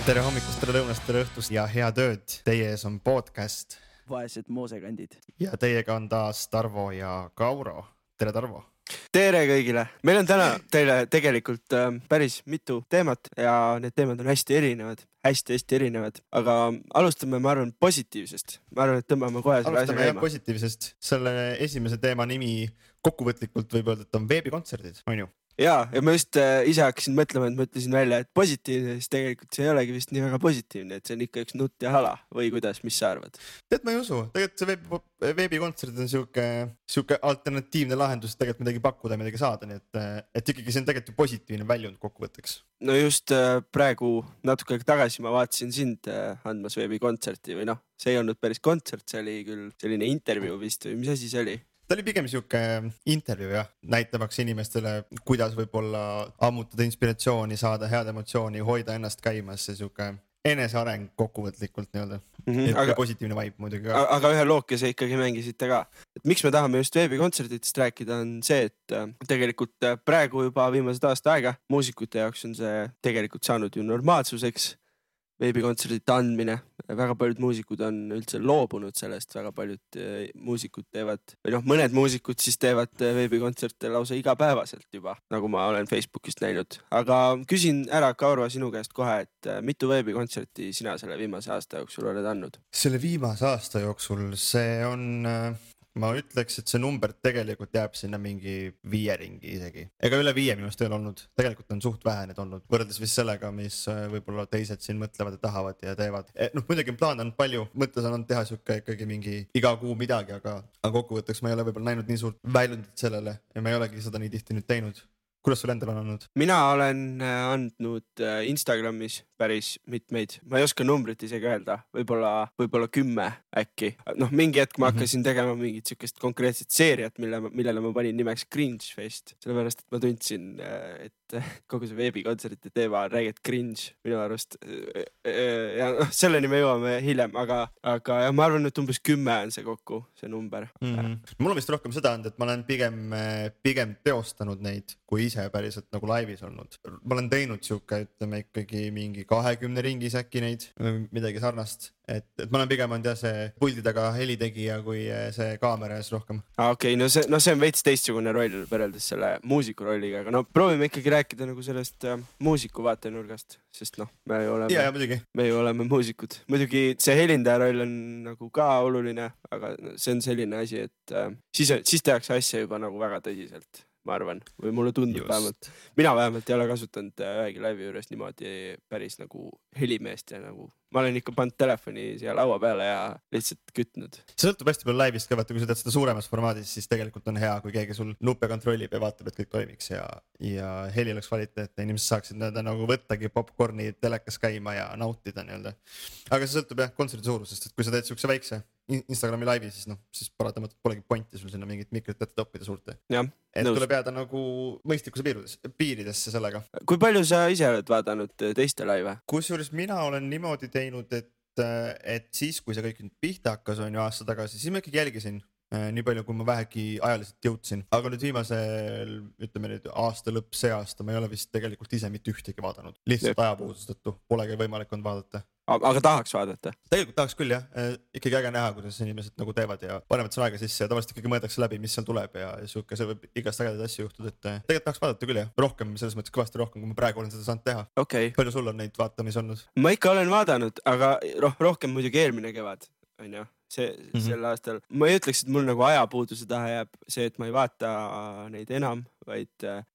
Tere hommikust, tere lõunast, tere õhtust ja head ööd. Teie ees on podcast. Vaesed moosekandid. Ja teiega on taas Tarvo ja Kauro. Tere, Tarvo. Tere kõigile. Meil on täna teile tegelikult päris mitu teemat ja need teemad on hästi erinevad. Hästi erinevad. Aga alustame, ma arvan, positiivsest. Ma arvan, et tõmbame kohe selle asja käima. käima. Positiivsest. Selle esimese teema nimi kokkuvõtlikult võib öelda, et on veebikontserdid, on ju? Ja ma just ise hakkasin mõtlema, et ma ütlesin välja, et positiivne, siis tegelikult see ei olegi vist nii väga positiivne, et see on ikka üks nutt ja hala või kuidas, mis sa arvad? Tead, ma ei usu. Tegelikult see veebikontserd on siuke alternatiivne lahendus, tegelikult midagi pakkuda ja midagi saada, nii et ikkagi see on tegelikult positiivne väljund kokkuvõtteks. No just praegu natuke tagasi ma vaatasin sind andmas veebikontserti või noh, see ei olnud päris kontsert, see oli küll selline intervjuu vist või mis asi see oli? Ta oli pigem siuke intervjuu jah, näitamaks inimestele, kuidas võib-olla ammutada inspiratsiooni, saada head emotsiooni, hoida ennast käimas ja siuke eneseareng kokkuvõtlikult nii-öelda. Aga positiivne vibe muidugi ka. Aga ühe lookese ikkagi mängisite ka. Et miks me tahame just veebikontserditest rääkida on see, et tegelikult praegu juba viimased aasta aega muusikute jaoks on see tegelikult saanud ju normaalsuseks. Veebikontserdite andmine, väga paljud muusikud on üldse loobunud sellest, väga paljud muusikud teevad, või noh, mõned muusikud siis teevad veebikontserte lausa igapäevaselt juba, nagu ma olen Facebookist näinud. Aga küsin ära, Kauro, sinu käest kohe, et mitu veebikontserti sina selle viimase aasta jooksul oled andnud? Selle viimase aasta jooksul see on... Ma ütleks, et see number tegelikult jääb sinna mingi 5 ringi isegi. Ega üle 5 minust ei ole olnud. Tegelikult on suht vähe need olnud. Võrreldes vist sellega, mis võib-olla teised siin mõtlevad ja tahavad ja teevad. Muidugi plaan on palju. Mõttes on teha siuke ikkagi mingi iga kuu midagi, aga kokkuvõtteks ma ei ole võib-olla näinud nii suurt väljundit sellele ja ma ei olegi seda nii tihti nüüd teinud. Kuidas sul endal on olnud? Mina olen andnud Instagramis päris mitmeid. Ma ei oska numbrit isegi öelda. Võib-olla 10 äkki. Noh, mingi hetk ma hakkasin tegema mingit siukest konkreetset seeriat, millele ma panin nimeks Cringe Fest. Sellepärast, et ma tundsin, et kogu see veebikontserdite teema on räägid cringe minu arust. Ja selleni me jõuame hiljem, aga ja ma arvan, et umbes 10 on see kokku, see number. Mul on vist rohkem seda olnud, et ma olen pigem teostanud neid, kui ise päriselt nagu laivis olnud. Ma olen teinud siuke, ütleme ikkagi mingi 20 ringis äkki neid, midagi sarnast. Et ma olen pigem olnud see puldi taga helitegija kui see kaamera ees rohkem. Okei, no see on veits teistsugune roll võrreldes selle muusiku rolliga, aga no proovime ikkagi rääkida nagu sellest muusiku vaatenurgast, sest noh, me ju oleme muusikud. Muidugi see helindaja roll on nagu ka oluline, aga see on selline asi, et siis tehakse asja juba nagu väga tõsiselt, ma arvan, või mulle tundub vähemalt. Mina vähemalt ei ole kasutanud ühegi laivi juures niimoodi päris nagu helimeest ja nagu ma olen ikka pannud telefoni siia laua peale ja lihtsalt kütnud. See sõltub hästi palju laivist ka, kui sa teed seda suuremas formaadis, siis tegelikult on hea, kui keegi sul nuppe kontrollib ja vaatab, et kõik toimiks ja heli oleks kvaliteetne. Inimesed saaksid nagu võttagi popcorni telekas käima ja nautida nii-öelda. Aga see sõltub jah kontserdi suurusest, et kui sa teed siukse väikse Instagrami laivi, siis paratamatult polegi pointi sul sinna mingit mikrit ette toppida suurte. Et tuleb jääda nagu mõistlikkuse piiridesse sellega. Kui palju sa ise oled vaadanud teiste laive? Kusjuures mina olen niimoodi teinud, et siis, kui see kõik nüüd pihta hakkas on ju aasta tagasi, siis ma ikkagi jälgisin nii palju, kui ma vähegi ajaliselt jõudsin. Aga nüüd viimasel, ütleme nüüd aasta lõpp, see aasta, ma ei ole vist tegelikult ise mitte ühtegi vaadanud. Lihtsalt ajapuuduse tõttu polegi võimalik on vaadata. Aga tahaks vaadata? Tegelikult tahaks küll jah, ikkagi äge näha, kuidas inimesed nagu teevad ja panevad sõna aega sisse ja tavaliselt ikkagi mõeldakse läbi, mis seal tuleb ja siuke, see võib igast ägedaid asju juhtuda, et tegelikult tahaks vaadata küll jah, rohkem, selles mõttes kõvasti rohkem, kui ma praegu olen seda saanud teha. Okay. Palju sul on neid vaatamisi olnud? Ma ikka olen vaadanud, aga rohkem muidugi eelmine kevad, on ju. Sel aastal. Ma ei ütleks, et mul nagu ajapuuduse taha jääb see, et ma ei vaata neid enam, vaid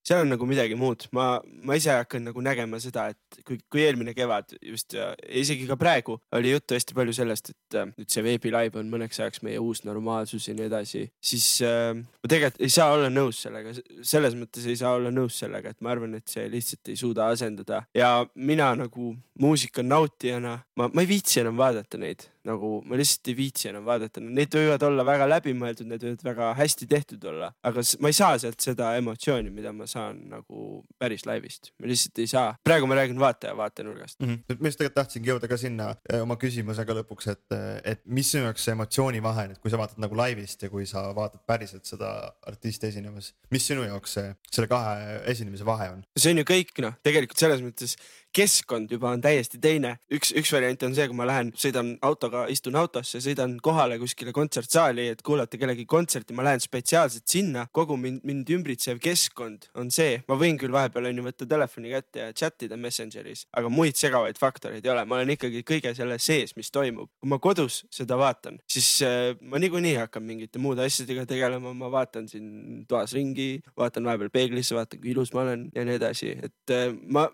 seal on nagu midagi muud. Ma ise hakkan nagu nägema seda, et kui eelmine kevad just ja isegi ka praegu oli juttu hästi palju sellest, et nüüd see veebilive on mõneks ajaks meie uus normaalsus ja nii edasi, siis ma tegelikult ei saa olla nõus sellega. Selles mõttes ei saa olla nõus sellega, et ma arvan, et see lihtsalt ei suuda asendada. Ja mina nagu muusika nautijana, ma ei viitsi enam vaadata neid. Nagu ma lihtsalt ei viitsi enam vaadata. Need võivad olla väga läbimõeldud, need võivad väga hästi tehtud olla, aga ma ei saa sealt seda emotsiooni, mida ma saan nagu päris laivist. Ma lihtsalt ei saa. Praegu ma räägin vaatenurgast. Ma just tegelikult tahtsingi jõuda ka sinna oma küsimusega lõpuks, et mis sinu jaoks see emotsiooni vahe, et kui sa vaatad nagu laivist ja kui sa vaatad päriselt seda artisti esinemas, mis sinu jaoks selle kahe esinemise vahe on? See on ju kõik, tegelikult selles mõttes keskkond juba on täiesti teine. Üks variant on see, kui ma lähen, sõidan autoga, istun autosse, sõidan kohale kuskile kontsertsaali, et kuulata kellegi kontserti, ma lähen spetsiaalselt sinna, kogu mind ümbritsev keskkond on see. Ma võin küll vahepeal võtta telefoni kätte ja chatida Messengeris, aga muid segavaid faktoreid ei ole. Ma olen ikkagi kõige selle sees, mis toimub. Kui ma kodus seda vaatan, siis ma niikuinii hakkan mingite muude asjadega tegelema. Ma vaatan siin toas ringi, vaatan vahepeal peeglisse, vaatan kui ilus ma olen ja nii edasi. Et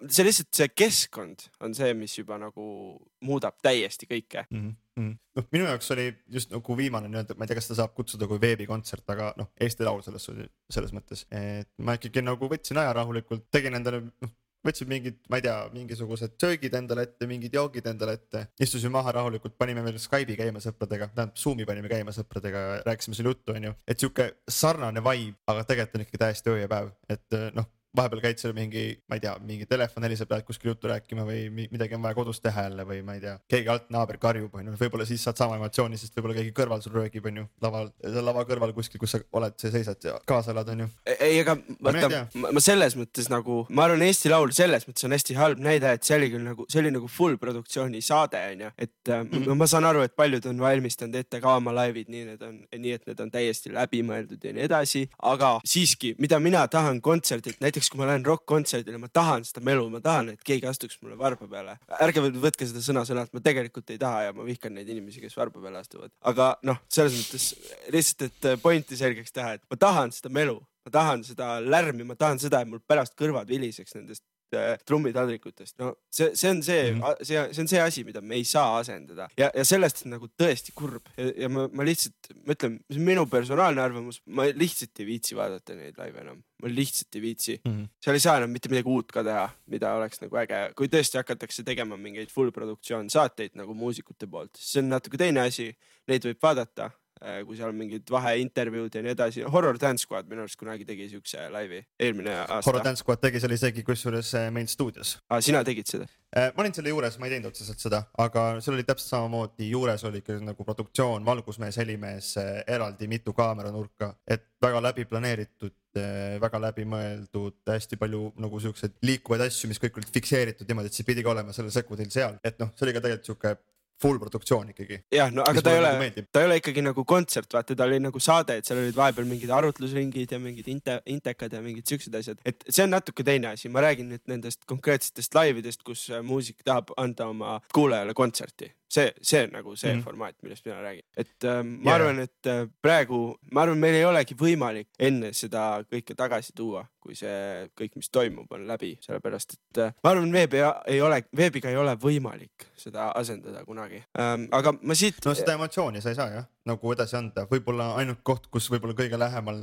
see lihtsalt see keskkond on see, mis juba nagu muudab täiesti kõike. Minu jaoks oli just nagu viimane ma ei tea, kas ta saab kutsuda kui veebikontsert, aga Eesti Laul selles mõttes, et ma ikkagi nagu võtsin aja rahulikult, tegin endale võtsin mingid, ma ei tea, mingisugused söögid endale ette, mingid joogid endale ette, istusime maha rahulikult, panime veel Skype'i käima sõpradega, Zoomi panime käima sõpradega, rääkisime selle juttu, et siuke sarnane vibe, aga tegelikult on ikkagi täiesti öö ja päev, et vahepeal käid seal ma ei tea, mingi telefon heliseb, lähed kuskil juttu rääkima või midagi on vaja kodus teha jälle või ma ei tea, keegi alt naaber karjub, võib-olla siis saad sama emotsiooni, sest võib-olla keegi kõrval sul röögib, lava kõrval kuskil, kus sa oled, sa seisad ja kaasa elad, Ei, aga ma selles mõttes nagu, ma arvan, Eesti Laul selles mõttes on hästi halb näide, et see oli küll nagu, see oli nagu full produktsiooni saade, et ma saan aru, et paljud on valmistanud ette ka oma laivid, nii et need on täiesti läbimõeldud ja nii edasi, aga siiski, mida mina tahan kontserdilt, näiteks kui ma lähen rock-kontserdile, ma tahan seda melu, ma tahan, et keegi astuks mulle varba peale. Ärge võtke seda sõna-sõnalt, ma tegelikult ei taha ja ma vihkan neid inimesi, kes varba peale astuvad. Aga selles mõttes lihtsalt, et pointi selgeks teha, et ma tahan seda melu, ma tahan seda lärmi, ma tahan seda, et mul pärast kõrvad viliseks nendest trummitadrikutest. See on see asi, mida me ei saa asendada ja sellest on nagu tõesti kurb ja ma lihtsalt mõtlen, see on minu personaalne arvamus, ma lihtsalt ei viitsi vaadata neid laive enam, ma lihtsalt ei viitsi. Seal ei saa enam mitte midagi uut ka teha, mida oleks nagu äge, kui tõesti hakatakse tegema mingeid full produktsioon saateid nagu muusikute poolt, see on natuke teine asi, neid võib vaadata, kui seal on mingid vaheintervjuud ja nii edasi. Horror Dance Squad minu arust kunagi tegi siukse laivi eelmine aasta. Horror Dance Squad tegi selle isegi kusjuures meil stuudios. Sina tegid seda? Ma olin selle juures, ma ei teinud otseselt seda, aga seal oli täpselt samamoodi, juures oli nagu produktsioon, valgusmees, helimees, eraldi mitu kaameranurka, et väga läbi planeeritud, väga läbi mõeldud, hästi palju nagu siukseid liikuvaid asju, mis kõik olid fikseeritud niimoodi, et see pidigi olema selle sekundil seal, et see oli ka tegelikult siuke full produktsioon ikkagi. Jah, aga ta ei ole ikkagi nagu kontsert, vaata, ta oli nagu saade, et seal olid vahepeal mingid arutlusringid ja mingid intekad ja mingid siuksed asjad. Et see on natuke teine asi. Ma räägin nüüd nendest konkreetsetest laividest, kus muusik tahab anda oma kuulajale kontserti. See on nagu see formaat, millest mina räägin. Et ma arvan, et praegu, meil ei olegi võimalik enne seda kõike tagasi tuua, kui see kõik, mis toimub, on läbi. Sellepärast, et ma arvan, veebiga ei ole võimalik seda asendada kunagi. Aga ma siit... seda emotsiooni sa ei saa, jah? Nagu edasi anda. Võib-olla ainult koht, kus võib-olla kõige lähemal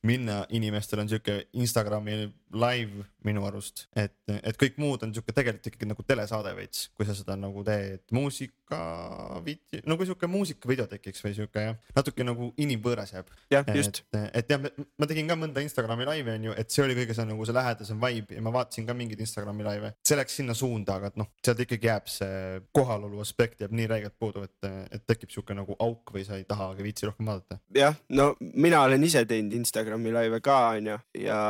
minna inimestel on siuke Instagrami live minu arust, et kõik muud on siuke tegelikult ikkagi nagu telesaade veits, kui sa seda nagu teed muusikavideo, nagu siuke muusikavideo tekiks või siuke natuke nagu inimvõõras jääb. Jah, just. Et jah, ma tegin ka mõnda Instagrami live on ju, et see oli kõige see nagu see lähedasem vibe ja ma vaatasin ka mingid Instagrami live. See läks sinna suunda, aga sealt ikkagi jääb see kohalolu aspekt jääb nii räigelt puudu, et tekib siuke nagu auk või sa ei taha viitsi rohkem vaadata. Jah, mina olen ise teinud Instagrami live ka on ju ja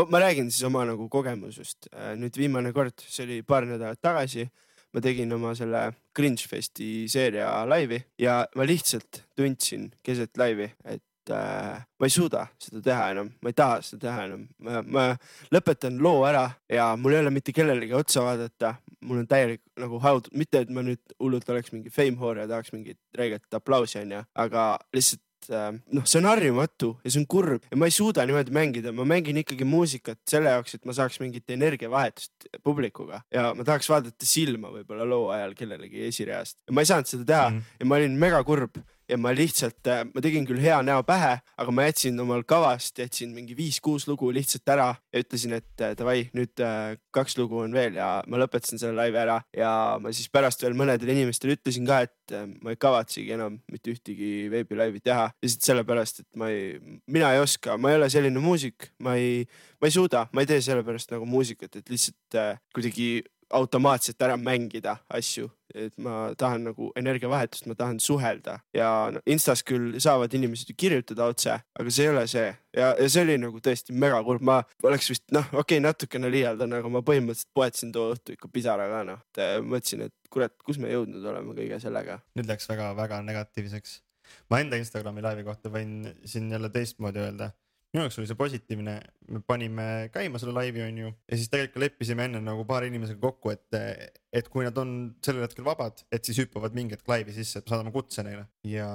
ma räägin siis oma nagu kogemusest. Nüüd viimane kord, see oli paar nädalat tagasi, ma tegin oma selle Cringe Festi seeria laivi ja ma lihtsalt tundsin keset laivi, et ma ei suuda seda teha enam, ma ei taha seda teha enam. Ma lõpetan loo ära ja mul ei ole mitte kellelegi otsa vaadata, mul on täielik nagu haud, mitte et ma nüüd hullult oleks mingi fame whore ja tahaks mingit räiget aplausi on ja, aga lihtsalt see on harjumatu ja see on kurb ja ma ei suuda niimoodi mängida, ma mängin ikkagi muusikat selle jaoks, et ma saaks mingit energiavahetust publikuga ja ma tahaks vaadata silma võib-olla loo ajal kellelegi esireast ja ma ei saanud seda teha ja ma olin mega kurb ja ma lihtsalt, ma tegin küll hea näo pähe, aga ma jätsin omal kavast, jätsin mingi 5-6 lugu lihtsalt ära ja ütlesin, et davai, nüüd 2 lugu on veel ja ma lõpetasin selle laivi ära ja ma siis pärast veel mõnedele inimestele ütlesin ka, et ma ei kavatsegi enam mitte ühtegi veebilaivi teha. Lihtsalt sellepärast, et mina ei oska, ma ei ole selline muusik, ma ei suuda, ma ei tee sellepärast nagu muusikat, et lihtsalt kuidagi automaatselt ära mängida asju, et ma tahan nagu energiavahetust, ma tahan suhelda ja no, Instas küll saavad inimesed ju kirjutada otse, aga see ei ole see ja see oli nagu tõesti mega kurb, ma oleks vist natukene liialdan, aga ma põhimõtteliselt poetasin too õhtu ikka pisaraga mõtlesin, et kurat, kus me jõudnud oleme kõige sellega. Nüüd läks väga negatiivseks. Ma enda Instagrami laivi kohta võin siin jälle teistmoodi öelda. Minu jaoks oli see positiivne, me panime käima selle laivi on ju ja siis tegelikult leppisime enne nagu paar inimesega kokku, et kui nad on sellel hetkel vabad, et siis hüppavad mingi hetk laivi sisse, et me saadame kutse neile ja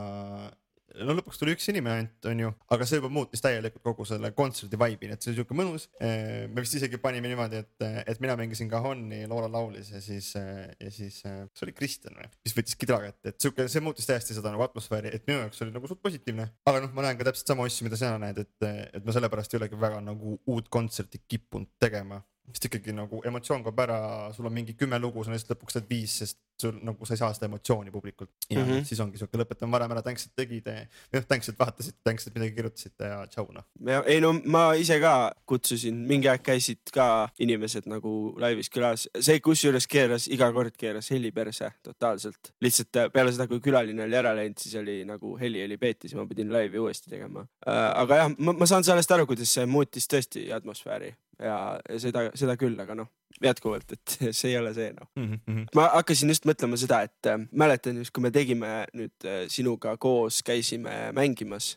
no lõpuks tuli üks inimene ainult on ju, aga see juba muutis täielikult kogu selle kontserdi vibe'i, et see oli siuke mõnus. Me vist isegi panime niimoodi, et mina mängisin Cajonni, Loora laulis ja siis see oli Kristjan või, mis võttis kidra kätte, et siuke, see muutis täiesti seda nagu atmosfääri, et minu jaoks oli nagu suht positiivne. Aga ma näen ka täpselt sama asju, mida sina näed, et ma sellepärast ei olegi väga nagu uut kontserti kippunud tegema. Sest ikkagi nagu emotsioon kaob ära, sul on mingi 10 lugu, sa lihtsalt lõpuks teed 5, sest sul nagu sa ei saa seda emotsiooni publikult. Ja siis ongi siuke lõpetame varem ära, tänks, et tegite, tänks, et vaatasid, tänks, et midagi kirjutasite ja tšau noh. Ei no ma ise ka kutsusin, mingi aeg käisid ka inimesed nagu laivis külas. See kusjuures iga kord keeras heli perse totaalselt. Lihtsalt peale seda, kui külaline oli ära läinud, siis oli nagu heli peeti, siis ma pidin laivi uuesti tegema. Aga jah, ma saan sellest aru, kuidas see muutis tõesti atmosfääri. Ja seda küll, aga jätkuvalt, et see ei ole see Ma hakkasin just mõtlema seda, et mäletan just, kui me tegime nüüd sinuga koos, käisime mängimas,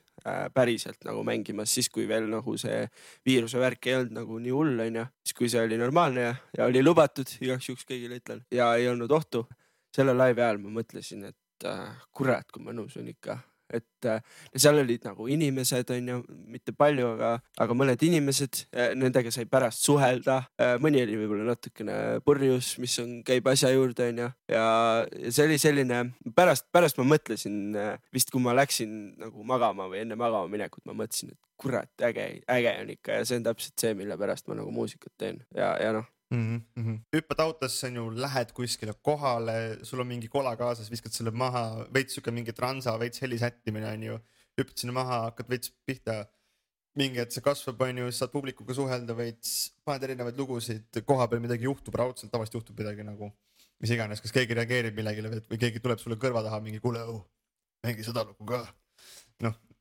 päriselt nagu mängimas, siis kui veel nagu see viiruse värk ei olnud nagu nii hull on ja siis kui see oli normaalne ja oli lubatud, igaks juhuks kõigile ütlen ja ei olnud ohtu. Selle laivi ajal ma mõtlesin, et kurat, kui mõnus on ikka. Et seal olid nagu inimesed on ju, mitte palju, aga mõned inimesed, nendega sai pärast suhelda, mõni oli võib-olla natukene purjus, mis käib asja juurde on ju ja see oli selline, pärast ma mõtlesin vist kui ma läksin nagu magama või enne magama minekut, ma mõtlesin, et kurat, äge on ikka ja see on täpselt see, mille pärast ma nagu muusikat teen ja Hüppad autosse on ju, lähed kuskile kohale, sul on mingi kola kaasas, viskad selle maha, veits siuke mingi transa, veits helisättimine on ju, hüppad sinna maha, hakkad veits pihta, mingi, et see kasvab on ju, saad publikuga suhelda veits, paned erinevaid lugusid, koha peal midagi juhtub, raudselt tavaliselt juhtub midagi nagu, mis iganes, kas keegi reageerib millegile või keegi tuleb sulle kõrva taha mingi kuule, mängi seda lugu ka.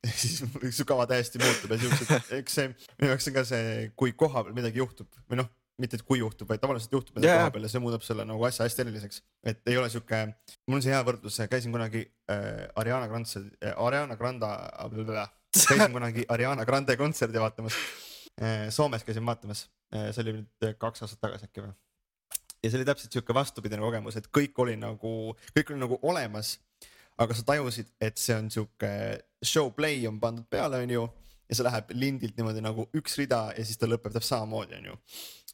Siis su kava täiesti muutub ja siuksed, eks see, minu jaoks on ka see, kui koha peal midagi juhtub või mitte et kui juhtub, vaid tavaliselt juhtub midagi koha peal ja see muudab selle nagu asja hästi eriliseks. Et ei ole siuke, mul on see hea võrdlus, käisin kunagi Ariana Grande kontserdi vaatamas. Soomes käisin vaatamas, see oli nüüd 2 aastat tagasi äkki või. Ja see oli täpselt siuke vastupidine kogemus, et kõik oli nagu olemas, aga sa tajusid, et see on siuke show play on pandud peale on ju ja see läheb lindilt niimoodi nagu üks rida ja siis ta lõpeb samamoodi on ju.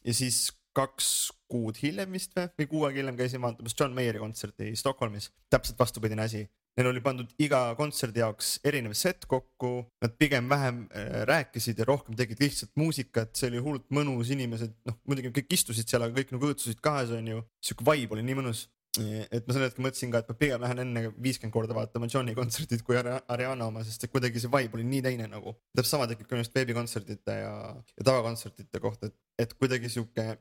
Ja siis 2 kuud hiljem vist või 6 aega hiljem käisin vaatamas John Mayeri kontserti Stockholmis. Täpselt vastupidine asi. Neil oli pandud iga kontserdi jaoks erinev set kokku. Nad pigem vähem rääkisid ja rohkem tegid lihtsalt muusikat. See oli hullult mõnus inimesed. Muidugi kõik istusid seal, aga kõik nagu õõtsusid kahes on ju. Siuke vibe oli nii mõnus. Et ma selle hetke mõtlesin ka, et ma pigem lähen enne 50 korda vaatama Johni kontserdid kui Ariana oma, sest kuidagi see vibe oli nii teine nagu. Täpselt sama tekib ka just veebikontserdite ja tavakontsertide kohta, et kuidagi siuke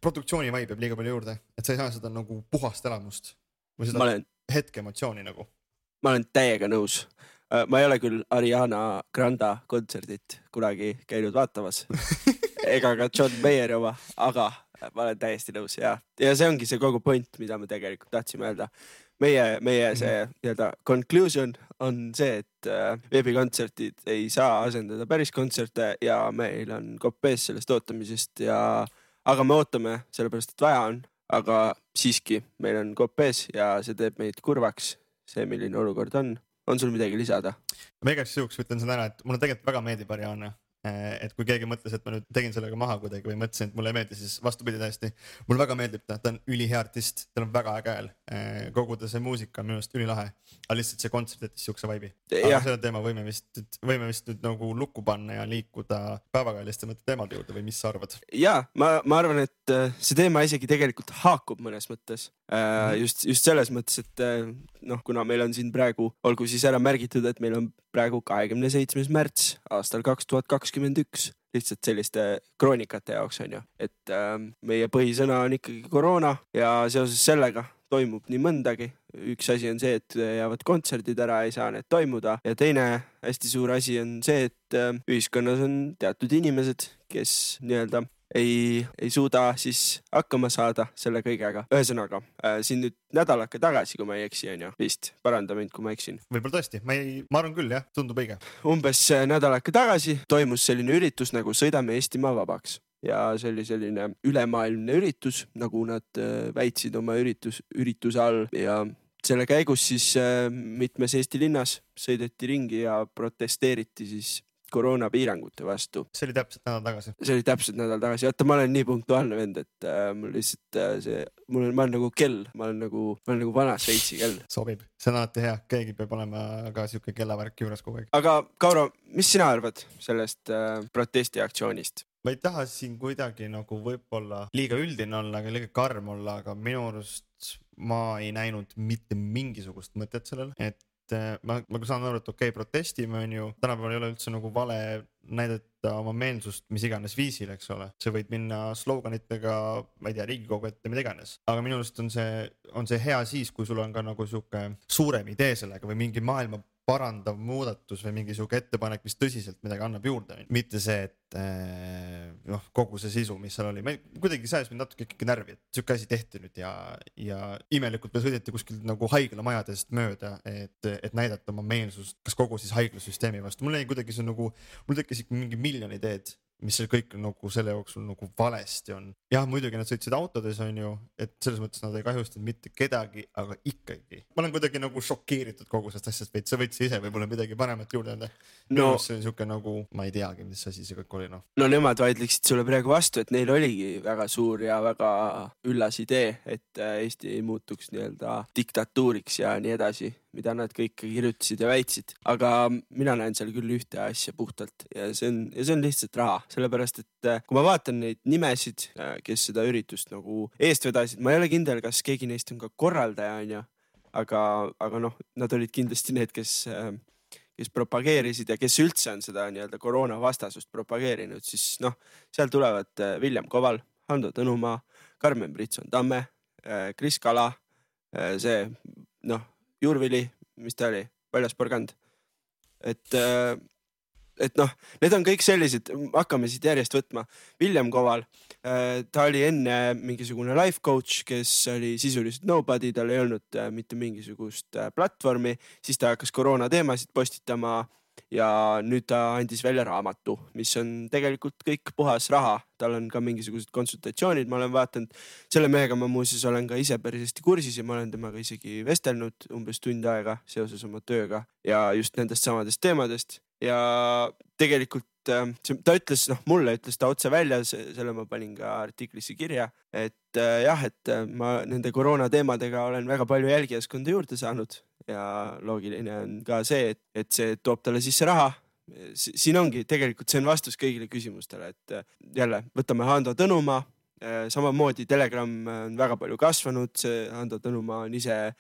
produktsiooni vibe jääb liiga palju juurde, et sa ei saa seda nagu puhast elamust või seda hetke emotsiooni nagu. Ma olen täiega nõus. Ma ei ole küll Ariana Grande kontserdit kunagi käinud vaatamas ega ka John Mayeri oma, aga ma olen täiesti nõus ja see ongi see kogu point, mida me tegelikult tahtsime öelda. Meie see conclusion on see, et veebikontserdid ei saa asendada päris kontserte ja meil on kopees sellest ootamisest aga me ootame sellepärast, et vaja on, aga siiski meil on kopees ja see teeb meid kurvaks, see milline olukord on. On sul midagi lisada? Ma igaks juhuks ütlen seda ära, et mulle tegelikult väga meeldib Ariana. Et kui keegi mõtles, et ma nüüd tegin sellega maha kuidagi või mõtlesin, et mulle ei meeldi, siis vastupidi täiesti. Mulle väga meeldib ta on ülihea artist, tal on väga äge hääl. Kogu ta see muusika on minu arust ülilahe, aga lihtsalt see kontsert jättis siukse vibe'i. Aga selle teema võime vist nüüd nagu lukku panna ja liikuda päevakajaliste teemade juurde või mis sa arvad? Ja, ma arvan, et see teema isegi tegelikult haakub mõnes mõttes. just selles mõttes, et noh, kuna meil on siin praegu, olgu siis ära märgitud, et meil on praegu 27. märts aastal 2021, lihtsalt selliste kroonikate jaoks on ju, et meie põhisõna on ikkagi koroona ja seoses sellega toimub nii mõndagi. Üks asi on see, et jäävad kontserdid ära, ei saa need toimuda ja teine hästi suur asi on see, et ühiskonnas on teatud inimesed, kes nii-öelda ei suuda siis hakkama saada selle kõigega. Ühesõnaga, siin nüüd nädalake tagasi, kui ma ei eksi, on ju, vist paranda mind, kui ma eksin. Võib-olla tõesti, ma arvan küll, jah, tundub õige. Umbes nädalake tagasi toimus selline üritus nagu Sõidame Eestimaa vabaks. Ja see oli selline ülemaailmne üritus, nagu nad väitsid oma ürituse all ja selle käigus siis mitmes Eesti linnas sõideti ringi ja protesteeriti siis koroonapiirangute vastu. See oli täpselt nädal tagasi. Vaata, ma olen nii punktuaalne vend, et mul lihtsalt ma olen nagu kell, ma olen nagu vana Šveitsi kell. Sobib, see on alati hea, keegi peab olema ka siuke kellavärk juures kogu aeg. Aga Kauro, mis sina arvad sellest protestiaktsioonist? Ma ei taha siin kuidagi nagu võib-olla liiga üldine olla, aga liiga karm olla, aga minu arust ma ei näinud mitte mingisugust mõtet sellel, et ma saan aru, et okei, protestime on ju, tänapäeval ei ole üldse nagu vale näidata oma meelsust mis iganes viisil, eks ole. See võid minna sloganitega, ma ei tea, Riigikogu ette, mida iganes. Aga minu arust on see hea siis, kui sul on ka nagu siuke suurem idee sellega või mingi maailma parandav muudatus või mingi siuke ettepanek, mis tõsiselt midagi annab juurde. Mitte see, et kogu see sisu, mis seal oli. Kuidagi sajas mind natuke ikkagi närvi, et siuke asi tehti nüüd ja imelikult me sõideti kuskil nagu haiglamajadest mööda, et näidata oma meelsust, kas kogu siis haiglasüsteemi vastu. Mul tekkis ikka mingi miljon ideed, mis see kõik nagu selle jooksul nagu valesti on. Jah, muidugi nad sõitsid autodes on ju, et selles mõttes nad ei kahjustanud mitte kedagi, aga ikkagi. Ma olen kuidagi nagu šokeeritud kogu sellest asjast, sa võtsid ise võib-olla midagi paremat juurde anda. No, see on siuke nagu, ma ei teagi, mis asi see kõik oli. No nemad vaidleksid sulle praegu vastu, et neil oligi väga suur ja väga üllas idee, et Eesti ei muutuks nii-öelda diktatuuriks ja nii edasi, mida nad kõik kirjutasid ja väitsid. Aga mina näen seal küll ühte asja puhtalt ja see on lihtsalt raha. Sellepärast, et kui ma vaatan neid nimesid, kes seda üritust nagu eest vedasid, ma ei ole kindel, kas keegi neist on ka korraldaja, on ju. Aga noh, nad olid kindlasti need, kes propageerisid ja kes üldse on seda nii-öelda koroona vastasust propageerinud, siis noh, seal tulevad Villem Koval, Hando Tõnumaa, Karmen Britson-Tamme, Kris Kala, see Jurvili, mis ta oli, Valjas Porgand. Et noh, need on kõik sellised, hakkame siit järjest võtma. Villem Koval, ta oli enne mingisugune life coach, kes oli sisuliselt nobody, tal ei olnud mitte mingisugust platvormi, siis ta hakkas koroona teemasid postitama ja nüüd ta andis välja raamatu, mis on tegelikult kõik puhas raha. Tal on ka mingisugused konsultatsioonid, ma olen vaatanud, selle mehega ma muuseas olen ka ise päris hästi kursis ja ma olen temaga isegi vestelnud umbes tund aega seoses oma tööga ja just nendest samadest teemadest. Ja tegelikult ta ütles, mulle ütles ta otse välja, selle ma panin ka artiklisse kirja, et jah, et ma nende koroona teemadega olen väga palju jälgijaskonda juurde saanud ja loogiline on ka see, et see toob talle sisse raha. Siin ongi tegelikult, see on vastus kõigile küsimustele, et jälle võtame Hando Tõnumaa, samamoodi Telegram on väga palju kasvanud, see Hando Tõnumaa on ise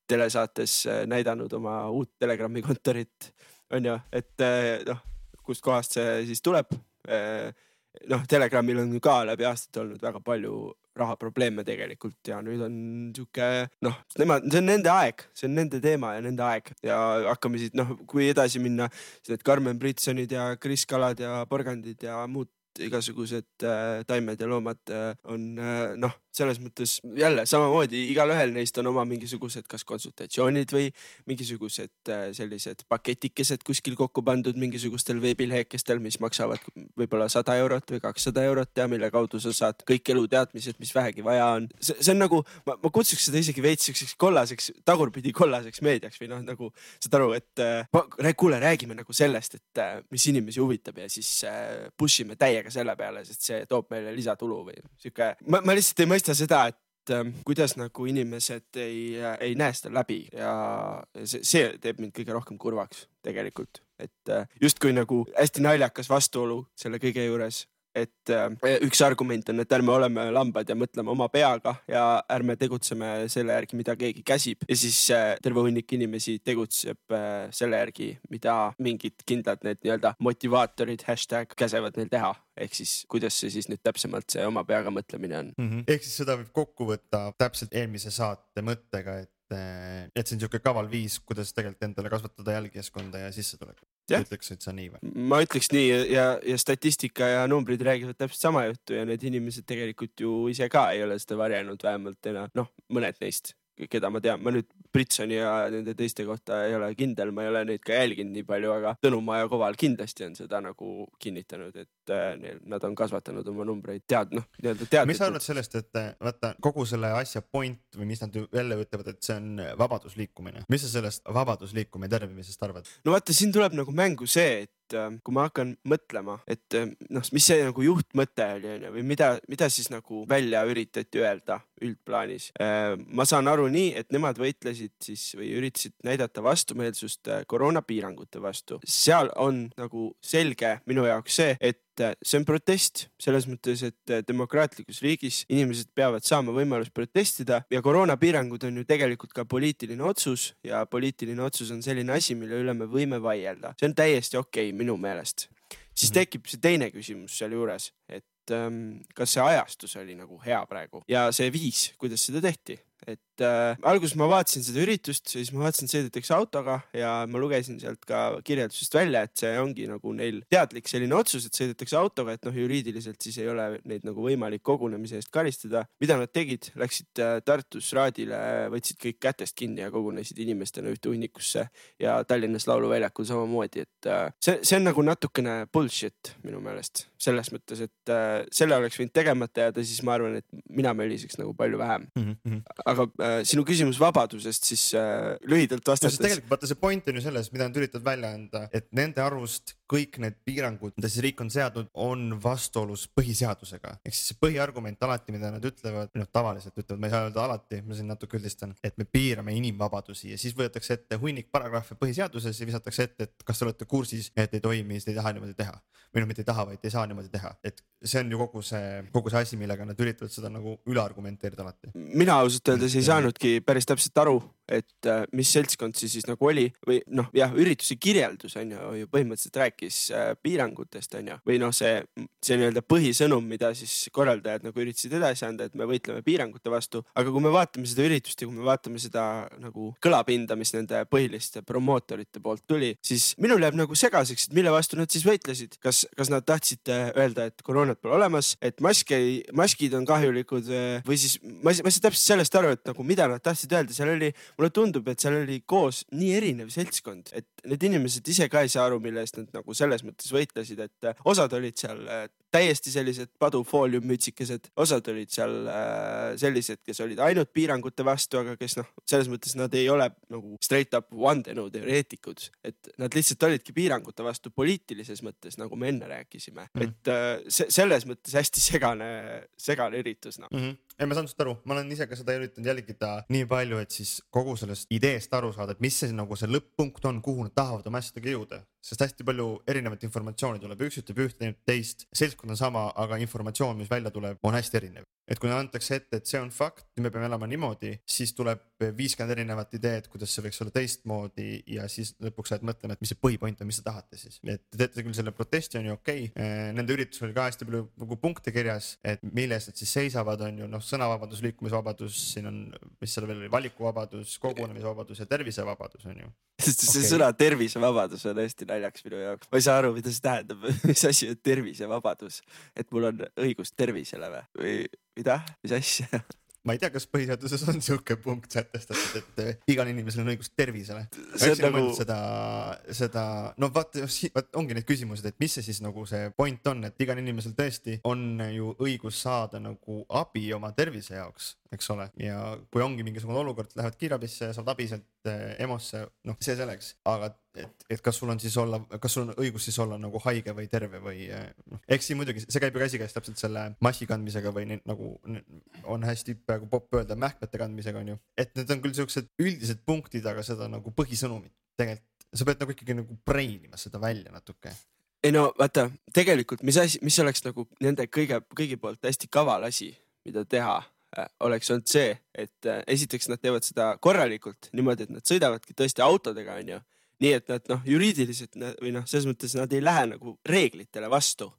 telesaates näidanud oma uut Telegrami kontorit, on ju, et kust kohast see siis tuleb. Telegramil on ka läbi aastat olnud väga palju rahaprobleeme tegelikult ja nüüd on siuke, see on nende aeg, see on nende teema ja nende aeg ja hakkame siit, kui edasi minna, need Karmen Britsonid ja Kris Kalad ja Porgandid ja muud igasugused taimed ja loomad on selles mõttes jälle samamoodi igalühel neist on oma mingisugused kas konsultatsioonid või mingisugused sellised paketikesed kuskil kokku pandud mingisugustel veebilehekestel, mis maksavad võib-olla 100 eurot või 200 eurot ja mille kaudu sa saad kõik eluteadmised, mis vähegi vaja on. See on nagu, ma kutsuks seda isegi veits kollaseks, tagurpidi kollaseks meediaks või nagu saad aru, et kuule, räägime nagu sellest, et mis inimesi huvitab ja siis pushime täiega selle peale, sest see toob meile lisatulu või siuke. Ma lihtsalt ei mõista seda, et kuidas nagu inimesed ei näe seda läbi ja see teeb mind kõige rohkem kurvaks tegelikult, et just kui nagu hästi naljakas vastuolu selle kõige juures et üks argument on, et ärme oleme lambad ja mõtleme oma peaga ja ärme tegutseme selle järgi, mida keegi käsib. Ja siis terve hunnik inimesi tegutseb selle järgi, mida mingid kindlad need nii-öelda motivaatorid hashtag käsevad neil teha. Ehk siis, kuidas see siis nüüd täpsemalt see oma peaga mõtlemine on. Ehk siis seda võib kokku võtta täpselt eelmise saate mõttega, et see on niisugune kaval viis, kuidas tegelikult endale kasvatada jälgijaskonda ja sissetulekut. Ütleksid sa nii või? Ma ütleks nii ja statistika ja numbrid räägivad täpselt sama juttu ja need inimesed tegelikult ju ise ka ei ole seda varjanud, vähemalt mõned neist, keda ma tean. Ma nüüd Britsoni ja nende teiste kohta ei ole kindel, ma ei ole neid ka jälginud nii palju, aga Tõnumaa ja Koval kindlasti on seda nagu kinnitanud, et nad on kasvatanud oma numbreid teadlikult. Mis sa arvad sellest, et vaata kogu selle asja point või mis nad jälle ütlevad, et see on vabadusliikumine. Mis sa sellest vabadusliikumine tervimisest arvad? No vaata, siin tuleb nagu mängu see, et kui ma hakkan mõtlema, et mis see nagu juhtmõte oli või mida siis nagu välja üritati öelda üldplaanis. Ma saan aru nii, et nemad võitlesid siis või üritasid näidata vastumeelsust koroonapiirangute vastu. Seal on nagu selge minu jaoks see, et see on protest selles mõttes, et demokraatlikus riigis inimesed peavad saama võimalus protestida ja koroonapiirangud on ju tegelikult ka poliitiline otsus ja poliitiline otsus on selline asi, mille üle me võime vaielda. See on täiesti okei minu meelest. Siis tekib see teine küsimus seal juures, et kas see ajastus oli nagu hea praegu ja see viis, kuidas seda tehti. Et alguses ma vaatasin seda üritust, siis ma vaatasin, sõidetakse autoga ja ma lugesin sealt ka kirjeldusest välja, et see ongi nagu neil teadlik selline otsus, et sõidetakse autoga, et juriidiliselt siis ei ole neid nagu võimalik kogunemise eest karistada. Mida nad tegid? Läksid Tartus raadile, võtsid kõik kätest kinni ja kogunesid inimestena ühte hunnikusse ja Tallinnas lauluväljakul samamoodi, et see on nagu natukene bullshit minu meelest. Selles mõttes, et selle oleks võinud tegemata jääda, siis ma arvan, et mina möliseks nagu palju vähem. Aga sinu küsimus vabadusest siis lühidalt vastates. Tegelikult vaata see point on ju selles, mida nad üritavad välja anda, et nende arvust kõik need piirangud, mida siis riik on seadnud, on vastuolus põhiseadusega. Ehk siis see põhiargument alati, mida nad ütlevad, tavaliselt ütlevad, ma ei saa öelda alati, ma siin natuke üldistan, et me piirame inimvabadusi ja siis võetakse ette hunnik paragrahve põhiseaduses ja visatakse ette, et kas te olete kursis, et ei toimi, ei taha niimoodi teha. Või mitte ei taha, vaid ei saa niimoodi teha. Et see on ju kogu see asi, millega nad üritavad seda nagu üle argumenteerida alati. Mina ausalt öeldes ei saanudki päris täpselt aru, et mis seltskond siis nagu oli või ürituse kirjeldus on ju põhimõtteliselt rääkis piirangutest on ju või see nii-öelda põhisõnum, mida siis korraldajad nagu üritasid edasi anda, et me võitleme piirangute vastu, aga kui me vaatame seda üritust ja kui me vaatame seda nagu kõlapinda, mis nende põhiliste promootorite poolt tuli, siis minul jääb nagu segaseks, et mille vastu nad siis võitlesid. Kas nad tahtsid öelda, et koroonat pole olemas, et maskid on kahjulikud või siis ma ei saa täpselt sellest aru, et nagu mida nad tahtsid öelda, seal oli, mulle tundub, et seal oli koos nii erinev seltskond, et need inimesed ise ka ei saa aru, mille eest nad nagu selles mõttes võitlesid, et osad olid seal täiesti sellised padufooliummütsikesed, osad olid seal sellised, kes olid ainult piirangute vastu, aga kes selles mõttes nad ei ole nagu straight up vandenõuteoreetikud, et nad lihtsalt olidki piirangute vastu poliitilises mõttes, nagu me enne rääkisime. Et selles mõttes hästi segane üritus. Ei, ma saan sust aru, ma olen ise ka seda üritanud jälgida nii palju, et siis kogu sellest ideest aru saada, et mis see nagu see lõpp-punkt on, kuhu nad tahavad oma asjadega jõuda. Sest hästi palju erinevat informatsiooni tuleb, üks ütleb ühte, teist, seltskond on sama, aga informatsioon, mis välja tuleb, on hästi erinev. Et kui antakse ette, et see on fakt, me peame elama niimoodi, siis tuleb 50 erinevat ideed, kuidas see võiks olla teistmoodi ja siis lõpuks saad mõtlema, et mis see põhipoint on, mis te tahate siis. Et te teete küll selle protesti on ju okei. Nende üritus oli ka hästi palju nagu punkte kirjas, et milles nad siis seisavad on ju sõnavabadus, liikumisvabadus, siin on, mis seal veel oli, valikuvabadus, kogunemisvabadus ja tervisevabadus on ju. See sõna tervisevabadus on hästi naljaks minu jaoks. Ma ei saa aru, mida see tähendab, mis asi on tervisevabadus, et mul on õigus tervisele või mida, mis asja? Ma ei tea, kas põhiseaduses on siuke punkt sätestatud, et igal inimesel on õigus tervisele. See on nagu... ongi need küsimused, et mis see siis nagu see point on, et igal inimesel tõesti on ju õigus saada nagu abi oma tervise jaoks, eks ole. Ja kui ongi mingisugune olukord, lähevad kiirabisse ja saavad abi sealt EMO-sse, see selleks, aga et kas sul on siis kas sul on õigus siis olla nagu haige või terve või eks siin muidugi, see käib ju käsikäes täpselt selle maski kandmisega või nagu on hästi praegu popp öelda mähkmete kandmisega on ju, et need on küll siuksed üldised punktid, aga seda nagu põhisõnumit tegelikult, sa pead nagu ikkagi nagu brainima seda välja natuke. ei no vaata, tegelikult mis oleks nagu nende kõigi poolt hästi kaval asi, mida teha, oleks olnud see, et esiteks nad teevad seda korralikult niimoodi, et nad sõidavadki tõesti autodega, on ju. Nii et nad juriidiliselt või selles mõttes nad ei lähe nagu reeglitele vastu.